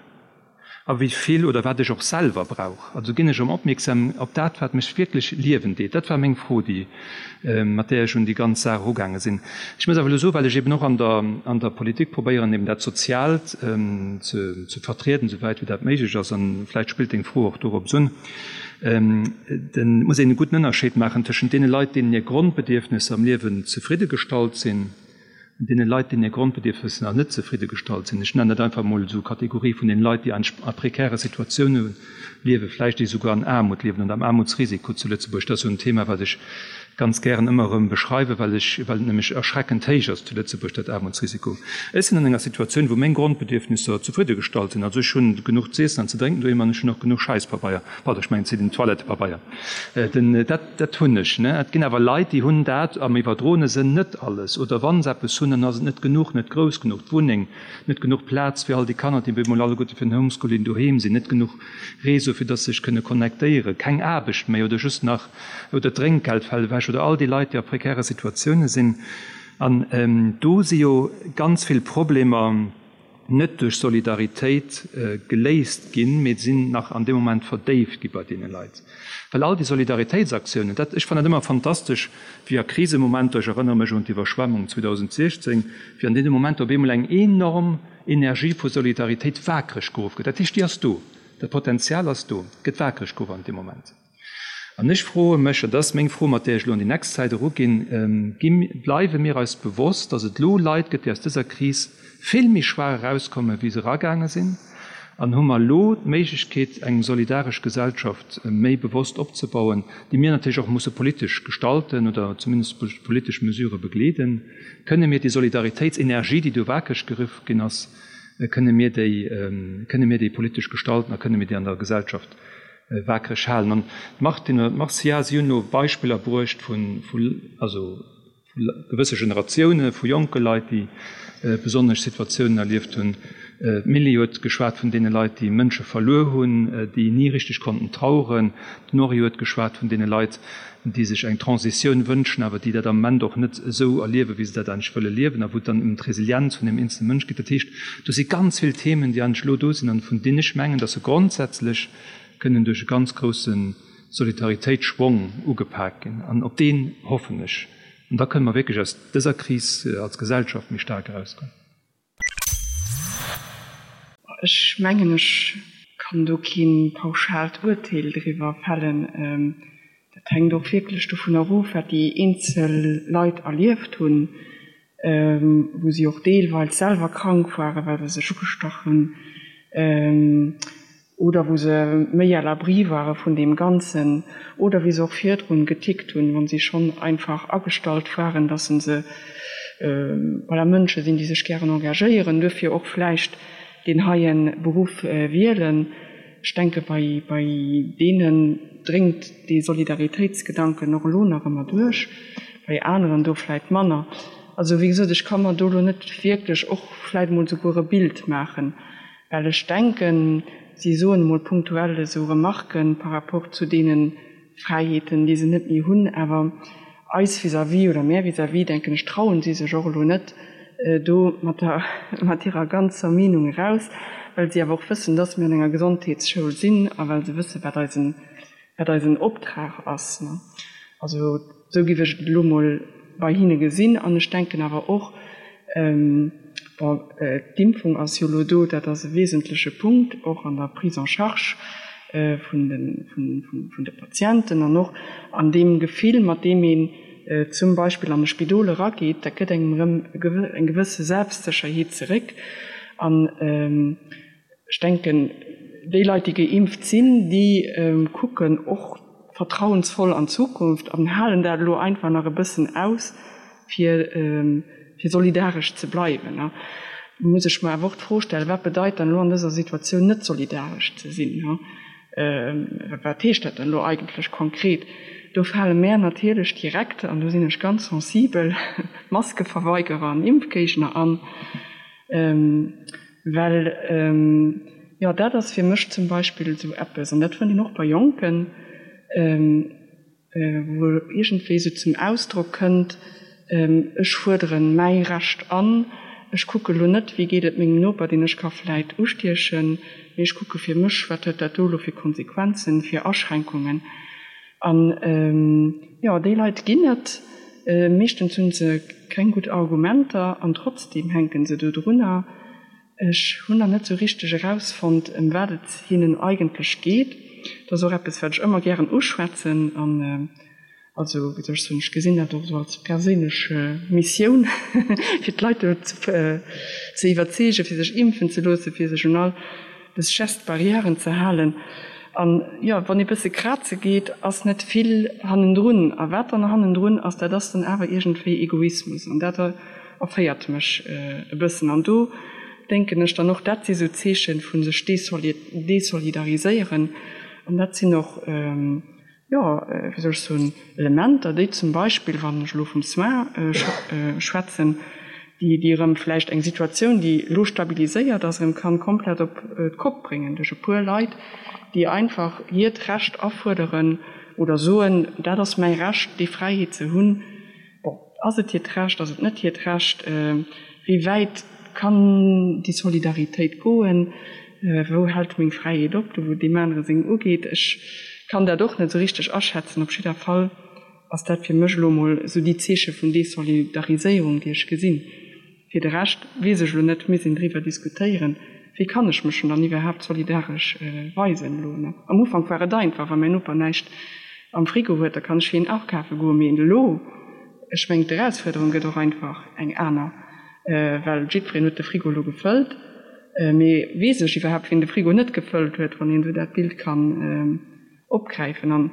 A wéi vill oder wat ech och selwer brauch. Also ginn ech erëm opmierksam op dat, wat mech wierklech liewen deet. Dat war meng Fro, déi, mat där ech un déi ganz Saach erugaange sinn. Ech muss awer elo soen, well ech eben och an der, an der Politik probéieren, eben dat Soziaalt ze, ze vertrieden, souwäit wéi dat méiglech ass, an vläicht spillt deng Fro och dorops un, den, muss een e gudden Ënnerscheed maachen tëschent deene Leit, deenen hir Grondbedierfnesser am Liewen zefridde gestallt sinn, Un deene Leit, deenen hir Grondbedierfnesser nach net zefridde gestallt sinn, ech nennen dat einfach emol esou Kategorie vun deene Leit, déi an a prekäre Situatioune liewen, vläicht déi souguer an Aarmut liewen oder am Aarmutsrisiko zu Lëtzebuerg, dat ass jo en Thema, wat ech. ganz gären ëmmer erëm beschreiwen, well ech, well et nämlech erschreckend héich ass zu Lëtzebuerg, dat Aarmutsrisiko. Ech sinn an enger Situatioun, wou meng Grondbedierfnisser zefriddegestallt sinn. Also ech hunn genuch z'iessen an ze drénken doheem an ech hunn och genuch Schäisspabeier, pardon, ech mengen den Toilettepabeier. Den, dat, dat hunn ech, ne. Et ginn awer Leit, déi hunn dat am iwwerdroene Sënn net alles. Oder wa se eppes hunn, dann ass et net genuch, net grouss genuch, d'Wunneng, net genuch Plaz fir all déi Kanner, déi bemol alleguerte fir den Homeschooling doheem sinn, net genuch Réseau, fir dass se sech kënne connectéieren, keng Aarbecht méi oder just nach, oder d'Drénkgeld fält ewech oder all déi Leit, déi a prekäre Situatioune sinn. An do si jo ganz vill Problemer net duerch Solidaritéit geléist ginn, mee sinn nach an deem Moment verdéift gi bei deene Leit. Well all déi Solidaritéitsaktiounen, dat, ech fannen dat ëmmer fantastesch, wéi a Krisemomenter, ech erënnere mech un d'Iwwerschwemmung 2016, wéi an deene Momenter op eemol eng enorm Energie vu Solidaritéit waakreg geruff gëtt. Dat heescht, déi ass do, dat Potenzial ass do, gëtt waakreg geruff an deem Moment. An ech froe mech, an dat ass meng Fro, mat där ech elo an déi nächst Zäit eruginn, Gi, bleiwe mir eis bewosst, datt et elo Leit gëtt, déi aus dëser Kris vill méi schwaach erauskommen, wéi se eragaange sinn? An hu mer elo d'Méiglechkeet, eng solidaresch Gesellschaft méi bewosst opzebauen, déi mir natierlech och musse politesch gestalten oder zumindest duerch politesch Mesurë begleeden? Kënne mir déi Solidaritéitsenergie, déi do wakereg geruff ginn ass, kënne mir déi, kënne mir déi politesch gestalten a kënne mir déi an der Gesellschaft waakreg halen. An d'Martine oder d'Marcia, si hunn elo Beispiller bruecht vun, also vu gewësse Generatioune vu jonke Leit, déi besonnesch Situatiounen erlieft hunn. D'Milly huet geschwat vun deene Leit, déi Mënsche verluer hunn, déi ni richteg konnten traueren. D'Nori huet geschwat vun deene Leit, déi sech eng Transitioun wënschen, awer déi dat am Moment och net esou erliewen, wéi se dat eigentlech wëlle liewen, a wou et dann ëm d'Resilienz vun deem eenzele Mënsch geet. Dat heescht, do si ganz vill Themen, déi eigentlech elo do sinn an vun deenen ech mengen, datt se grondsätzlech kënnen duerch e ganz grousse Solidaritéitsschwong ugepak ginn. An op deen hoffen ech. An da kënne mer wierklech aus dëser Kris als Gesellschaft méi staark erauskommen. Ech mengen, ech kann do kee pauschaalt Urteel driwwer fällen. Dat hänkt och wierklech dovun erof, wat déi eenzel Leit erlieft hunn, wou si och deelweis selwer krank waren, well se sech ugestach hunn. Oder wou se méi à l'abri ware vun deem Ganzen, oder wéi se och virdrun getickt hunn, wa si schonn einfach agestallt waren, dass se voilà, Mënsche sinn, déi sech gären engagéieren, duerfir och vläicht deen heie Beruff wielen. Ech denke bei deenen dréngt dee Solidaritéitsgedanken och elo nach ëmmer duerch, bei aneren do vläicht manner. Also wéi gesot, ech ka mer do elo net wierklech och vläicht emol souguer e Bild maachen. Well ech denken, si soen emol punktuell esou Remarquen par rapport zu deene Fräiheeten, déi se net méi hunn, awer eis vis-à-vis oder mär vis-à-vis, denken ech, trauen si sech och elo net do mat der, mat hirer ganzer Meenung eraus, well si awer och wëssen, dass mir an enger Gesondheetsschoul sinn a well se wëssen, wat eisen, wat eisen Optrag ass. Also esou géif ech et elo mol bei hinne gesinn. An ech denken awer och, bon, d'Impfung ass jo elo do, dat ass e wesentleche Punkt och an der Prise en charge vun de Patienten an och an deem Gefill, mat deem een zum Beispill an e Spidol erageet, dat gëtt engem erëm eng gewësse Selbstsécherheet zeréck. An Ech denken, déi Leit, déi geimpft sinn, déi kucken och vertrauensvoll an d'Zukunft an halen dat elo einfach nach e bëssen aus, fir solidaresch ze bleiwen. Do muss ech mer awer och d'Fro stellen, Wat bedeit dann elo an dëser Situatioun net solidaresch ze sinn? Wat heescht dat dann elo eigentlech konkret? Do fale mär natierlech direkt, an do sinn ech ganz sensibel, Maskeverweigerer an Impfgéigner an. Well, jo, dat ass fir mech zum Beispill esou eppes, an dat fënnt een och bei Jonken, wou iergendwéi esou zum Ausdrock kënnt, Ech fuerdere mäi Recht an, ech kucke lo net, wéi geet et mengem Noper, deen ech ka vläit ustiechen, mee ech kucke fir mech, wat huet dat do elo fir Konsequenzen, fir Aschränkungen. An, jo, déi Leit ginn et. Meeschtens hunn se keng gutt Argumenter an trotzdeem hänken se do drunner. Ech hunn nach net sou richteg erausfonnt, ëm wat et hinnen eigentlech geet. Dat ass och eppes, wat ech ëmmer gären uschwätzen an also, wéi soll ech soen, ech gesinn dat och esou als perséinlech Missioun, fir d'Leit do ze iwwerzeegen, fir sech impfen ze loossen, fir sech un all dës Gestes barrièren ze halen. An, jo, wann ee bësse kraze geet, ass net vill hannendrun. A wat dann hannendrun ass, dat ass dann awer iergendwéi Egoismus. An dat erféiert mech e bëssen. An do denken ech dann och, dat si sou Zeeche vu sech desolidariséieren. An dat sinn och, jo, wéi soll ech soen, Elementer, déi zum Beispill, wann ech elo vum Soin schwätzen, déi déi erëm vläicht eng Situatioun, déi elo stabiliséiert ass, erëm kann komplett op d'Kopp bréngen duerch e puer Leit, déi einfach hiert Recht afuerderen oder soen, dat ass mäi Recht, déi Fräiheet ze hunn. Bon, ass et hiert Recht, ass et net hiert Recht? Wéi wäit kann déi Solidaritéit goen? Wou hält meng Fräiheet op, do wou deem anere seng ugeet? Ech kann dat och net esou richteg aschätzen. Op jidder Fall ass dat fir mech elo emol esou déi Zeeche vun Desolidariséierung, déi ech gesinn. Fir de Rescht weess ech elo net, misst een driwwer diskutéieren, wéi kann ech mech dann iwwerhaapt solidaresch weisen elo. Am Ufank war et einfach, wa mäin Noper näischt am Frigo huet, da kann ech fir hien akafe goen. Mee elo, ech mengen d'Erausfuerderung gëtt och einfach eng aner, well jiddwereen huet de Frigo elo gefëllt. Mee weess ech iwwerhaapt, wien de Frigo net gefëllt huet, wann een esou dat Bild kann opgräifen. An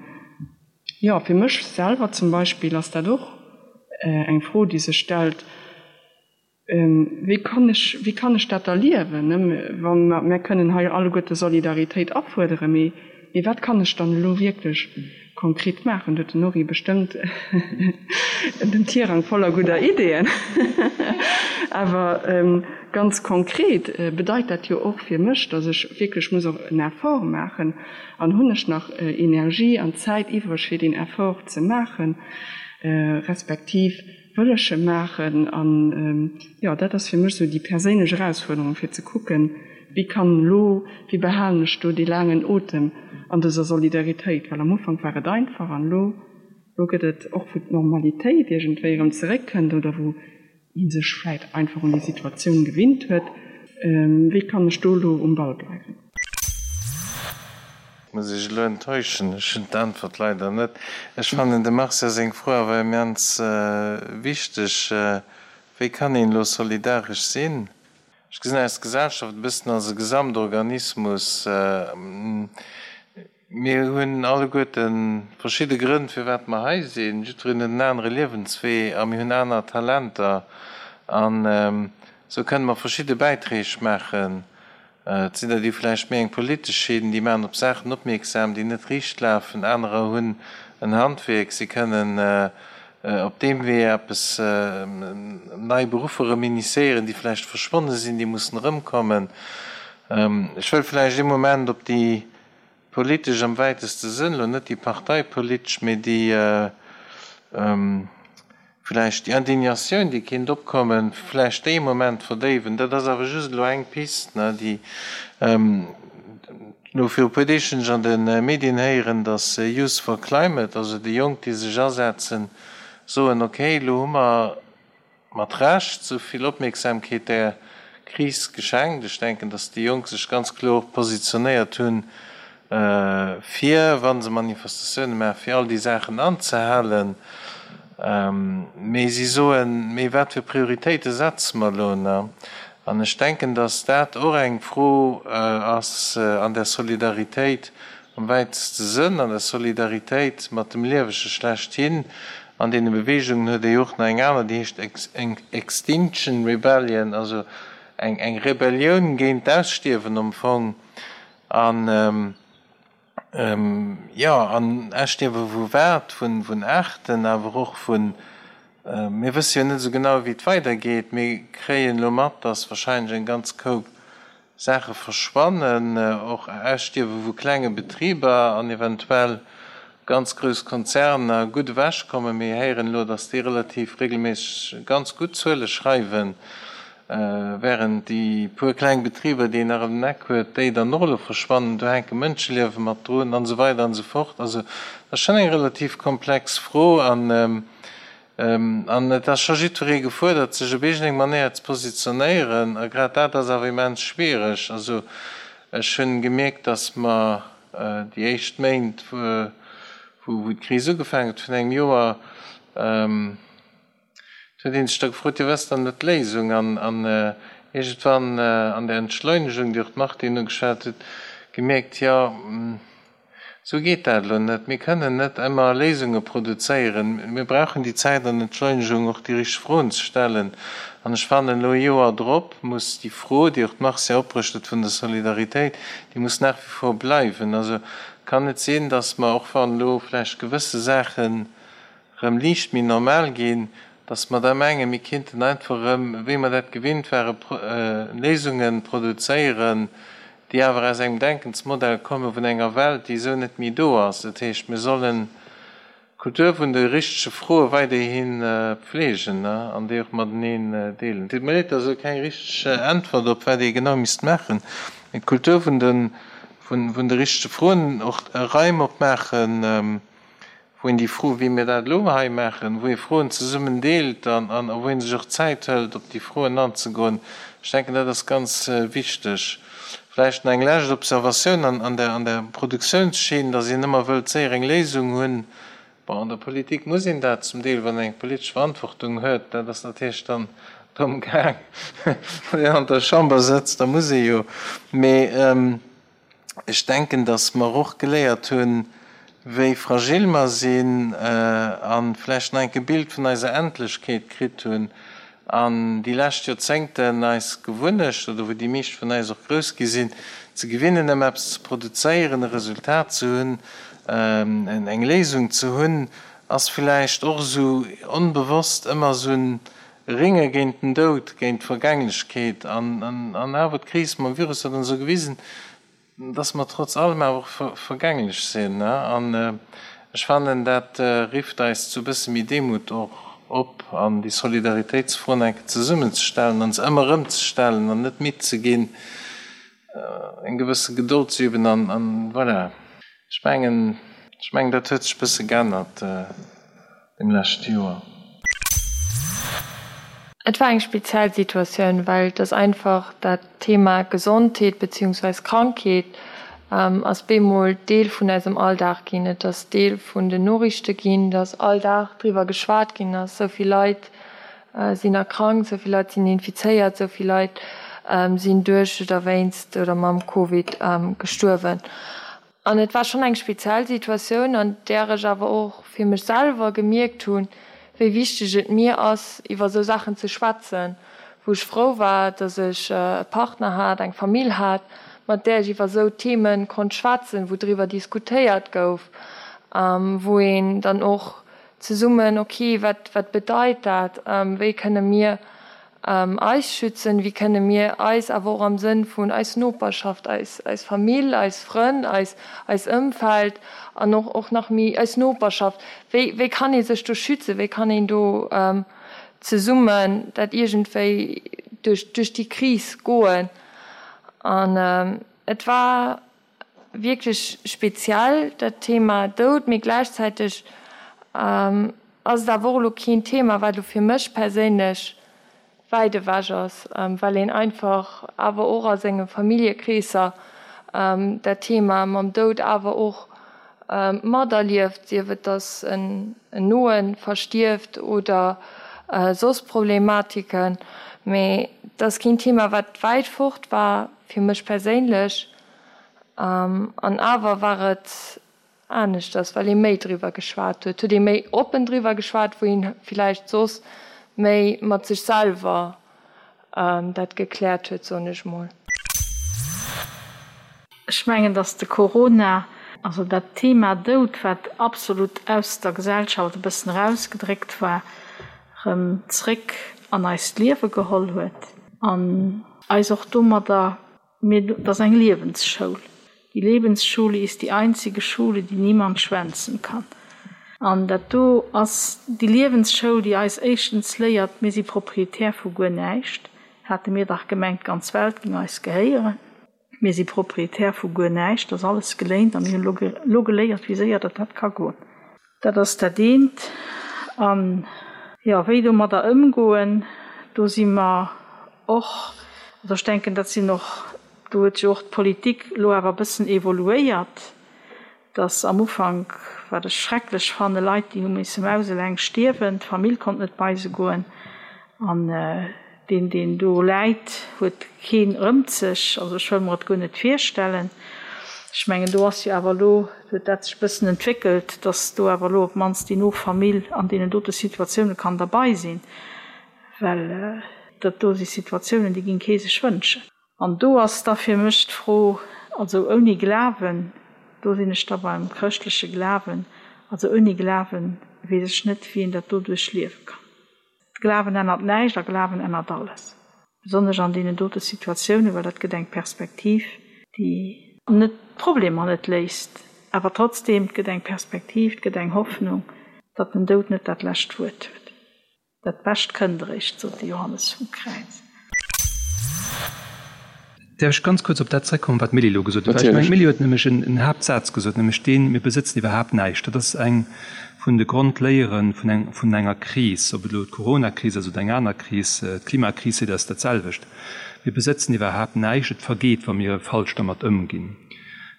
Jo, fir mech selwer zum Beispill ass dat och eng Fro, déi sech stellt, Wéi kann ech, wéi kann ech dat erliewen, wa mer, mär kënnen hei alleguerte Solidaritéit afuerderen, mee, mee wat kann ech dann elo wierklech konkret maachen? Do huet den Henri bestëmmt den Tirang voller gudder Ideeën. Awer ganz konkret bedeit dat jo och fir mech, datt ech wierklech muss och en Effort maachen, An hunn ech nach Energie an Zäit iwwreg fir deen Effort ze maachen, respektiv wëll ech e maachen? An jo, dat ass fir mech esou déi perséinlech Erausfuerderung, fir ze kucken, wéi kann elo, wéi behalen ech do dee laangen Otem an dëser Solidaritéit? Well am Ufank war et einfach an elo, elo gëtt et, och wou d'Normalitéit iergendwéi erëm zeréckkënnt oder wou ee sech vläit einfach un déi Situatioun gewinnt huet, wéi kann ech do elo um Ball bleiwen? Muss ech elo enttäuschen, ech hunn d'Äntwert leider net. Ech fannen dem Marcia seng Fro awer immens wichteg, Wéi kann een elo solidaresch sinn? Ech gesinn eis Gesellschaft e bëssen als e Gesamtorganismus. Mir hunn alleguerte verschidde Grënn, firwat mer hei sinn. Jiddwereen huet en anere Liewenswee a mir hunn aner Talenter. An esou kënne mer verschidde Bäiträg maachen. Et sinn der, déi vläicht méi eng politesch hinn, déi maachen op Saachen opmierksam, déi net riicht lafen. Anerer hunn en Handwierk, si kënnen op deem Wee eppes, nei Beruffer erëm initiéieren, déi vläicht verschwonne sinn, déi mussen erëmkommen. Ech wëll vläicht ee Moment op déi Politesch am wäiteste Sënn, elo net déi parteipolitesch, mee déi vläicht déi Indignatioun, déi kéint opkommen, vläicht déi e Moment verdéiwen. Dat ass awer just elo eng Pist, déi elo viru e puer Deeg hunn ech an de Medien héieren, datt Youth for Climate, also déi Jonk, déi sech asetzen, soen, okay, elo hu mer mat Recht sou vill Opmierksamkeet där Kris geschenkt. Ech denken, datt déi Jonk sech ganz kloer positionéiert hunn, fir, wa se Manifestatioune maachen, fir all déi Saachen anzehalen. Mee si soen, Mee wat fir Prioritéite setze mer elo? An ech denken, datt dat och eng Fro ass an der Solidaritéit am wäiteste Sënn, an der Solidaritéit mat dem Liewege schlechthin. An deene Beweegungen huet ee jo och nach eng aner, déi heescht Extinction Rebellion, also eng Rebellioun géint d'Ausstierwen am Fong. An, jo, an Ausstierwe vu wat? Vun Aarten, awer och vun, mir wësse jo net esou genau, wéi et weidergeet. Mir kréien elo mat, datt wahrscheinlech eng ganz Koup Saache verschwannen, och Ausstierwe vu klenge Betriber an eventuell ganz grouss Konzerner gutt ewechkommen. Mir héieren elo, datt déi relativ regelméisseg ganz gutt Zuele schreiwen, während déi puer kleng Betriber, déi een nach ëm den Eck huet, déi dann och elo verschwannen. Do hänke Mënscheliewe mat drun an esou weider an esou fort. Also dat ass schonn eng relativ komplex Fro an An et ass scho jiddweree gefuerdert, sech op iergendeng Manéier ze positionéieren. A grad dat ass awer immens schwiereg. Also ech hunn gemierkt, datt mer déi éischt Méint, wou d'Kris ugefaangen huet, virun engem Joer, do huet ee sech da gefrot, jo wat ass dann elo d'Léisung? An iergendwann an der Entschleunegung, déi och d'Martine ugeschwat huet, gemierkt, jo. Esou geet dat elo net. Mir kënnen net ëmmer Léisunge produzéieren. Mir brauchen déi Zäit an Entschleunegung, och déi richteg Froen ze stellen. An ech fannen, elo e Joer drop muss déi Fro, déi och d'Marcia opbruecht huet, vun der Solidaritéit, déi muss nach wie vor bleiwen. Also et kann net sinn, datt mer, och wann elo vläicht gewësse Saachen erëm liicht méi normal ginn, datt mer da mengen, mir kinnten einfach erëm, wéi mer dat gewinnt waren, Léisunge produzéieren, déi awer aus engem Denkensmodell komme vun enger Welt, déi esou net méi do ass. Dat heescht, mir sollen d'Kultur vun de richtege Froe weiderhi pflegen an déi och mateneen deelen. Et deet mir leed, dat ass elo keng richteg Äntwert op wat ee genau misst maachen, mee d'Kultur vun de richtege Froen, och Raim opmaachen, wou een déi Fro, wéi mir dat elo hei maachen, wou ee Froen zesummen deelt an wou ee sech och Zäit hëlt, op déi Froen anzegoen, ech denken, dat ass ganz wichteg. Vläicht nach eng lescht Observatioun an der, an der Produktiounsschinn, dass een ëmmer wëllt séier eng Léisung hunn. Bon, an der Politik muss een dat zum Deel, wann een eng politesch Verantwortung huet, dat ass natierlech dann drëm gaang, wann een an der Chamber sëtzt, da muss ee jo. Mee Ech denken, datt mer och geléiert hunn, wéi fragil mer sinn a vläicht nach enk e Bild vun eiser Endlechkeet kritt hunn an déi lescht Joerzéngten eis Gewunnecht, oder wou déi meescht vun eis och grouss gi sinn, ze gewinnen, ëm eppes ze produzéieren, e Resultat ze hunn, eng Léisung ze hunn, ass vläicht och esou onbewosst ëmmer esou en Ringe géint den Doud, géint d'Vergänglechkeet. An awer, d'Kris mam Virus huet ons esou gewisen, dass mer trotz allem awer och vergänglech sinn. An ech fannen, dat rifft eis zu e bësse méi Demut och op an déi Solidaritéitsfroen eng Kéier zesummenzestellen an se ëmmer erëm ze stellen an net midd ze ginn, eng gewësse Gedold ze üben. An voilà, ech mengen, ech mengen, dat huet sech e bësse geännert. Dem leschte Joer. Et war eng speziell Situatioun, well et ass einfach dat Thema Gesondheet beziehungsweis Krankheet ass bemol Deel vun eisem Alldag ginn. Et ass Deel vun den Noriichte ginn, dass all Dag driwwer geschwat ginn ass, sou vill Leit sinn erkrankt, sou vill Leit sinn infizéiert, sou vill Leit sinn duerch oder wéinst oder mam Covid gestuerwen. An et war schonn eng speziell Situatioun, an där ech awer och fir mech selwer gemierkt hunn, wéi wichteg et mir ass, iwwer esou Saachen ze schwätzen, wou ech frou war, datt ech e Partner hat, eng Famill hat, mat där ech iwwer esou Theme konnt schwätzen, wou driwwer diskutéiert gouf, wou een dann och zesummen, ok, wat, wat bedeit dat, wéi kënne mir eis schützen, wéi kënne mir eis awer och am Sënn vun eis Noperschaft, eis eis Famill, eis Frënn, eis eis Ëmfeld an och och nach méi eis Noperschaft, wéi wéi kann ee sech do schützen, wéi kann een do zesummen dat iergendwéi duerch duerch déi Kris goen. An et war wierklech speziell dat Thema Doud, mee gläichzäiteg ass et awer och elo keen Thema, wat elo fir mech perséinlech wäit ewech ass, well een einfach awer och a senge Familljekreesser dat Thema mam Doud awer och materlieft, sief et datt en Noe verstierft oder soss Problematiken. Mee et ass keen Thema, wat wäit fort war fir mech perséinlech. An awer war et aneschters, well ee méi driwwer geschwat huet, huet ee méi oppen driwwer geschwat, wou een villäicht soss méi mat sech selwer dat gekläert huet, soen ech mol. Ech mengen, datt de Corona, also dat Thema Doud, wat absolut aus der Gesellschaft e bëssen erausgedréckt war, erëm zréck an eist Liewe geholl huet an eis och domadder Mee et ass eng Liewensschoul. Die Lebensschule ist die einzige Schule, die niemand schwänzen kann. An dat do ass déi Liewensschoul, déi eis éischtens léiert, mir si Proprietär vu guer näischt. Hate mir dach gemengt, d'ganz Welt géing eis gehéieren. Mir si Proprietär vu guer näischt, et ass alles geléint a mir hunn elo geléiert, wéi séier datt dat ka goen. Dat ass dat eent. An, jo, wéi domadder ëmgoen, do si mer och, also ech denken, dat sinn och, do huet jo och d'Politik elo awer e bëssen evoluéiert, dass am Ufank, wat ech schrecklech fannen, Leit, déi hu misse mauseleng stierwen, d'Famill konnt net bei se goen an deen, deen do läit, huet keen rëmt sech. Also ech wëll mer et guer net virstellen. Ech mengen, do ass jo awer elo, huet dat sech e bëssen entwéckelt, datt do awer elo op d'mannst déi no Famill an deenen dote Situatioune kann derbei sinn, well dat do si Situatiounen, déi géing kee sech wënschen. An do ass da fir mech d'Fro, also ouni Glawen, do sinn ech da beim chrëschtleche Glawen, also ouni Glawen weess ech net, wéi een dat do duerchliewe kann. Glawen ännert näischt a Glawen ännert alles, besonnesch an deenen dote Situatiounen, well dat gëtt eng Perspektiv, déi net d'Problemer net léist, awer trotzdeem, et gëtt eng Perspektiv, et gëtt eng Hoffnung, datt den Doud net dat lescht Wuert huet. Dat Bescht kënnt eréischt, sot de Johannes vum Kräiz. Däerf ech ganz kuerz op dat zrëckkommen, wat d'Milly elo gesot huet? Well ech mengen, d'Milly huet nämlech en Haaptsaz gesot, nämlech deen, Mir besëtzen iwwerhaapt näischt. Dat ass eng vun de Grondléiere vun eng, vun enger Kris, ob et elo d'Coronakris ass oder eng aner Kris, d'Klimakris seet eis dat selwecht, Mir besëtzen iwwerhaapt näischt. Et vergeet, wa mir falsch dermat ëmginn.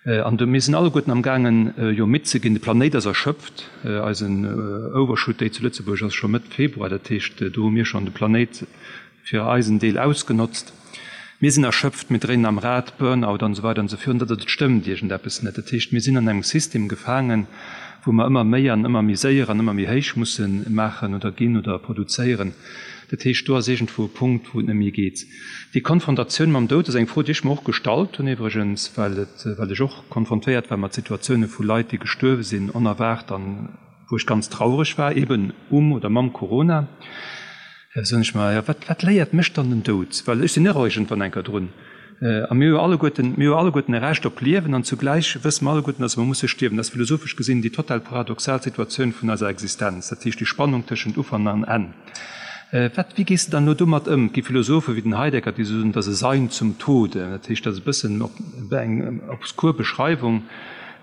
An do, mir sinn alleguerten amgaangen, jo midd ze ginn. De Planéit ass erschöpft. Eisen Overshoot Day zu Lëtzebuerg ass scho Mëtt Februar. Dat heescht, do hu mir schonn de Planéit fir eisen Deel ausgenotzt. Mir sinn erschöpft, mir dréinen am Rad, Burnout an esou weider an esou virun. Dat et stëmmt iergendeppes net. Dat heescht, mir sinn an engem System gefaangen, wou mer ëmmer méi an ëmmer méi séier an ëmmer méi héich musse maachen oder ginn oder produzéieren. Dat heescht, do ass iergendwou e Punkt, wou et net méi geet. Déi Konfrontatioun mam Doud ass eng Fro, déi ech mer och gestallt hunn iwwregens, well et, well ech och konfrontéiert war mat Situatioune vu Leit, déi gestuerwe sinn, onerwaart an wou ech ganz traureg war, eben um oder mam Corona. Da soen ech mer, jo, wat, wat léiert mech dann den Doud? Well ech sinn och iergendwann eng Kéier drun. A mir hu jo alleguerten, mir hu jo alleguerten e Recht op Liewen an zugläich wësse mer alleguerten, dass mer musse stierwen. Dat ass philosophesch gesinn déi total paradoxal Situatioun vun eiser Existenz, dat heescht déi Spannung tëschent Ufank an Enn. Wat, wéi gees de dann elo domat ëm? Et gi Philosophe wéi den Heidegger, déi soen, dat ass e Sein zum Tode. Dat heescht, dat ass e bëssen eng obskur Beschreiwung,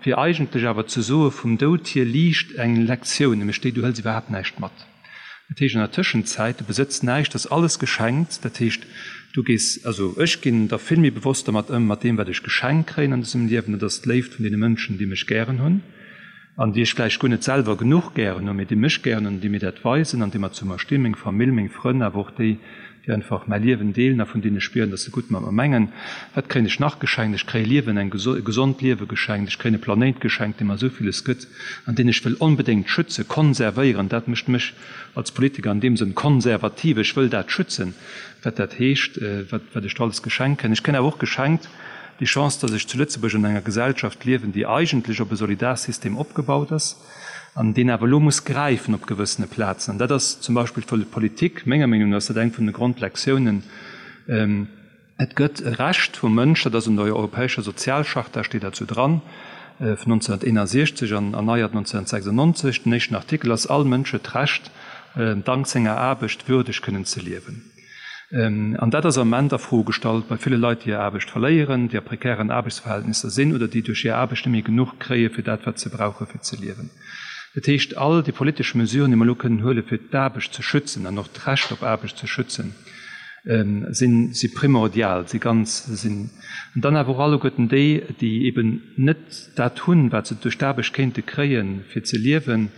fir eigentlech awer ze soe vum Doud hier liicht eng Lektioun, nämlech déi, du hëls iwwerhaapt näischt mat. Dat heescht an der Tëschenzäit, du besëtz näischt, ass alles geschenkt. Dat heescht, du gees, also ech ginn da vill méi bewosst dermat ëm, mat deem wat ech geschenkt kréien an dësem Liewen, dat ass d'Léift vun deene Mënschen, déi mech gären hunn an déi ech vläicht guer net selwer genuch gären hunn, mee déi mech gären hunn an déi mir dat weisen an déi mer zu mer stinn, meng Famill, meng Frënn, awer och déi, déi einfach mäi Liewen deelen a vun deenen ech spieren, dass se gutt mat mer mengen. Wat kréien ech nach geschenkt? Ech kréie Liewen, eng e gesond Liewe geschenkt. Ech kréien e Planéit geschenkt, dee mer esou villes gëtt an deen ech wëll onbedéngt schützen, konservéieren. Dat mécht mech als Politiker an deem Sënn konservativ. Ech wëll dat schützen, wat dat heescht, wat wat ech do alles geschenkt kréien. Ech kréien awer och geschenkt déi Chance, dass ech zu Lëtzebuerg an enger Gesellschaft liewen, déi eigentlech op e Solidarsystem opgebaut ass, an deen awer elo muss gräifen op gewëssene Plazen. An dat ass zum Beispill d'Politik, menger Meenung no ass dat eng vun de Grondlektiounen, Et gëtt e Recht vum Mënsch, dat ass an der Europäescher Sozialcharta steet dat esou dran, vun 1961 an erneiert 1996, den éischten Artikel ass, All Mënsch huet d'Recht, dank senger Aarbecht würdeg kënnen ze liewen. An dat ass am Ament a Fro gestallt bei ville Leit, déi hir Aarbecht verléieren, déi a prekären Aarbechtsverhältnisser sinn oder déi duerch hir Aarbecht net méi genuch kréie fir dat, wat se brauche fir ze liewen. Dat heescht, all déi politesch Mesuren, déi mer elo kënnen huele fir d'Aarbecht ze schützen an och d'Recht op Aarbecht ze schützen, sinn, si primordial, si ganz, sinn. An dann awer och alleguerten déi, déi eben net dat hunn, wat se duerch d'Aarbecht kéinte kréien, fir ze liewen,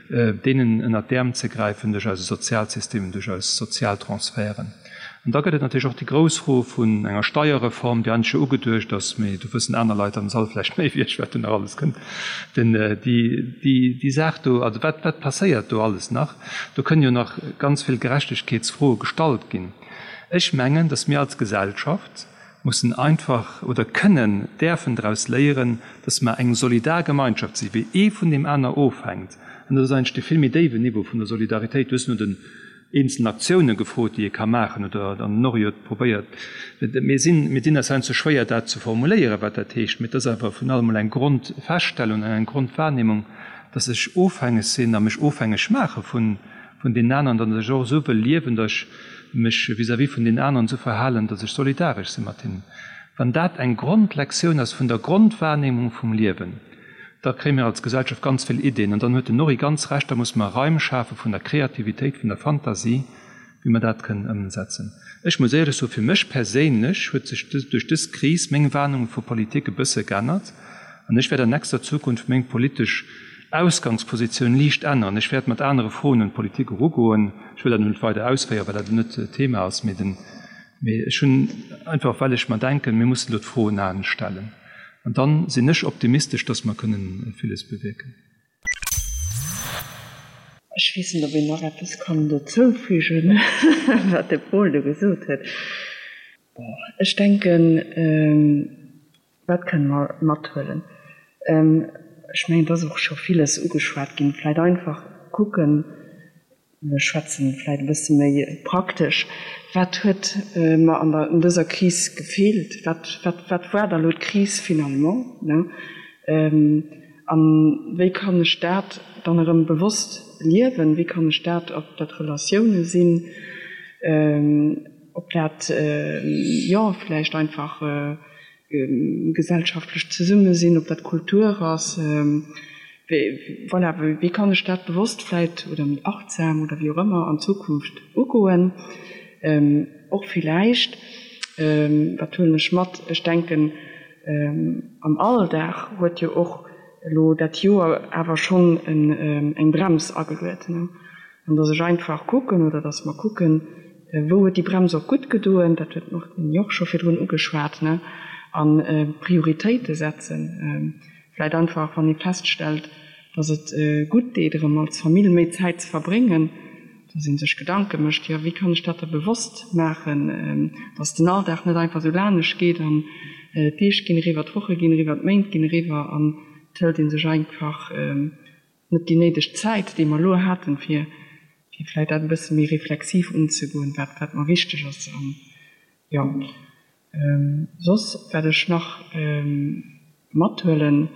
deenen ënnert d'Äerm ze gräifen duerch eise Sozialsystem, duerch eis Sozialtransferten. An da gëtt et natierlech och déi grouss Fro vun enger Steierreform, déi eigentlech jo ugeduecht ass, mee do wëssen aner Leit am Sall vläicht méi wéi ech, wat do nach alles kënnt, den, déi, déi, déi Saach do, also wat, wat passéiert do alles nach? Do kënnen jo nach ganz vill Gerechtegkeetsfroe gestallt ginn. Ech mengen, datt mir als Gesellschaft, mussen einfach oder kënnen, däerfen draus léieren, dass mer eng solidar Gemeinschaft sinn, wéi ee vun deem aner ofhänkt. An dat ass eigentlech dee vill méi déiwen Niveau vun der Solidaritéit. Du hues no den eenzelen Aktioune gefrot, déi ee ka maachen, oder an den Henri huet probéiert, mir sinn, mir dinn eis heiansdo schwéier, dat ze formuléieren, wat dat heescht, mee et ass awer vun allem emol eng Grondfeststellung an eng Grondwahrnehmung, dass ech ofhängeg sinn a mech ofhängeg maache vun vun deenen aneren, datt ech och esou wëll liewen, datt ech mech vis-à-vis vun deenen aneren esou verhalen, datt ech solidaresch si mat hinnen. Wann dat eng Grondlektioun ass vun der Grondwahrnehmung vum Liewen, da kréie mir als Gesellschaft ganz vill Ideen. An dann huet den Norry ganz Recht, da musse mer Raim schafe vun der Kreativitéit, vun der Fantasie, wéi mer dat kënnen ëmsetzen. Ech muss éierlech soen, fir mech perséinlech huet sech duerch dës Kris meng Wahrnehmung vu Politik e bësse geännert an ech wäert an nächster Zukunft meng politesch Ausgangspositioun liicht änneren. Ech wäert mat anere Froen un d'Politik erugoen. Ech wëll dat elo net weider ausféieren, well dat elo net d'Thema ass, mee den, mee ech hunn einfach, well ech mer denken, mir mussen elo d'Froen anescht stellen. An dann sinn ech optimistesch, dass mer kënnen villes bewierken. Ech weess net, ob een nach eppes kann dozoufügen, wat de Paul do gesot huet. Bon, ech denken, wat kënne mer mathuelen? Ech mengen, et ass och scho villes ugeschwat ginn. Vläicht einfach kucken, Mir schwätzen vläit e bësse méi praktesch. Wat huet mer an der, an dëser Kris gefeelt? Wat, wat, wat war da lo d'Kris finalement, ne? A wéi kann ech dat dann erëm bewosst liewen? Wéi kann ech dat, ob dat Relatioune sinn, ob dat, jo, vläicht einfach gesellschaftlecht Zesummesinn, ob dat Kultur ass, voilà, wéi kann ech dat bewosst vläit oder méi achtsam oder wéi och ëmmer an Zukunft ugoen. Och villäicht, wat huelen ech mat, ech denken am Alldag huet jo och elo dat Joer awer schonn eng Brems ageluet, An dass ech einfach kucken, oder dass mer kucken, wou huet déi Brems och gutt gedoen, dat huet d'Martine jo och scho virdrun ugeschwat, ne, a Prioritéite setzen. Vläicht einfach, wann ee feststellt, dass et gutt deet, erëm als Famill méi Zäit ze verbréngen, dass ee sech Gedanke mécht, jo, wéi kann ech dat da bewosst maachen, dass den Alldag net einfach esou lanescht geet an d'Deeg ginn eriwwer, d'Woche ginn eriwwer, d'Méint ginn eriwwer an et hëlt ee sech einfach net déi néideg Zäit, déi mer elo haten, fir fir vläicht dat e bësse méi reflexiv unzegoen, wat wat mer wichteg ass. An, jo, soss, wat ech nach mathuelen,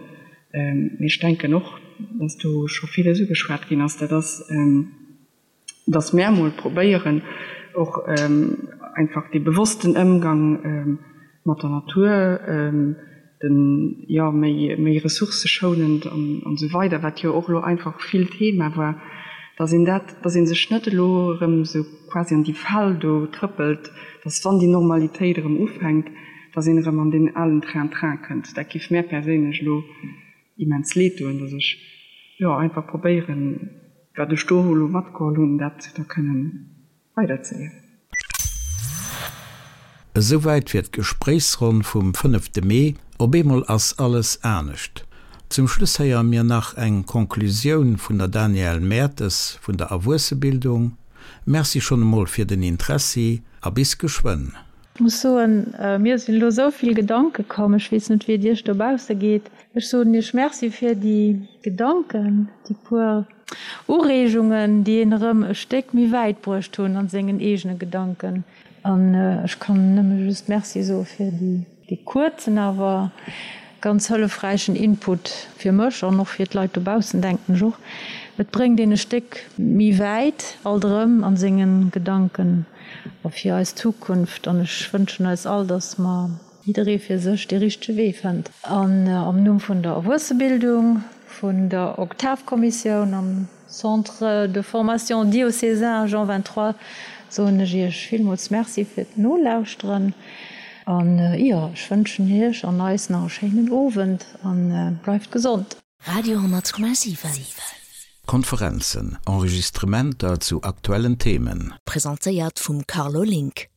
mee ech denken och, dass do scho villes ugeschwat ginn ass, dat ass, dass mär mol probéieren och einfach dee bewossten Ëmgang mat der Natur, den, jo, méi, méi ressourcëschounend an esou weider, wat jo och elo einfach vill Thema war, dass een dat, dass ee sech net elo erëm esou quasi an déi Fal do trëppelt, dass wann déi Normalitéit erëm ufänkt, dass een erëm an deen alen Train-train kënnt. Dat géif mär perséinlech elo immens leed doen, dass ech, jo, einfach probéieren, wat ech do elo matgeholl hunn, dat da kënnen weiderzeliewen. Esouwäit fir d'Gespréichsronn vum fënnefte Mee. Op eemol ass alles anescht. Zum Schluss héiere mir nach eng Conclusioun vun der Danièle Mertes vun der Erwuessebildung. Merci schonn emol fir den Interessi a bis geschwënn. Ech muss soen, mir sinn elo esou vill Gedanke komm, ech weess net wéi et Iech dobausse geet. Ech soen Iech Merci fir déi Gedanken, déi puer Ureegungen, déi een erëm e Stéck méi wäit bruecht hunn an sengen eegene Gedanken. An ech kann nëmme just Merci soe fir dee kuerzen, awer ganz hëllefräichen Input fir mech an och fir d'Leit dobaussen, denken ech och. Et bréngt een e Stéck méi wäit alt erëm a senge Gedanken a fir eis Zukunft. An ech wënschen eis all, dass mer jidderee fir sech dee richtege Wee fënnt. An am Numm vun der Erwuessebildung, vun der Oktavkommissioun am Centre de formation diocésain Jean 23 soen ech Iech villmools Merci fir d'Nolauschteren an jo, ech wënschen Iech an eis nach e schéinen Owend an bleift gesond. Radio 10,7. Konferenzen, Enregistrementer zu aktuellen Themen. Presentéiert vum Carlo Link.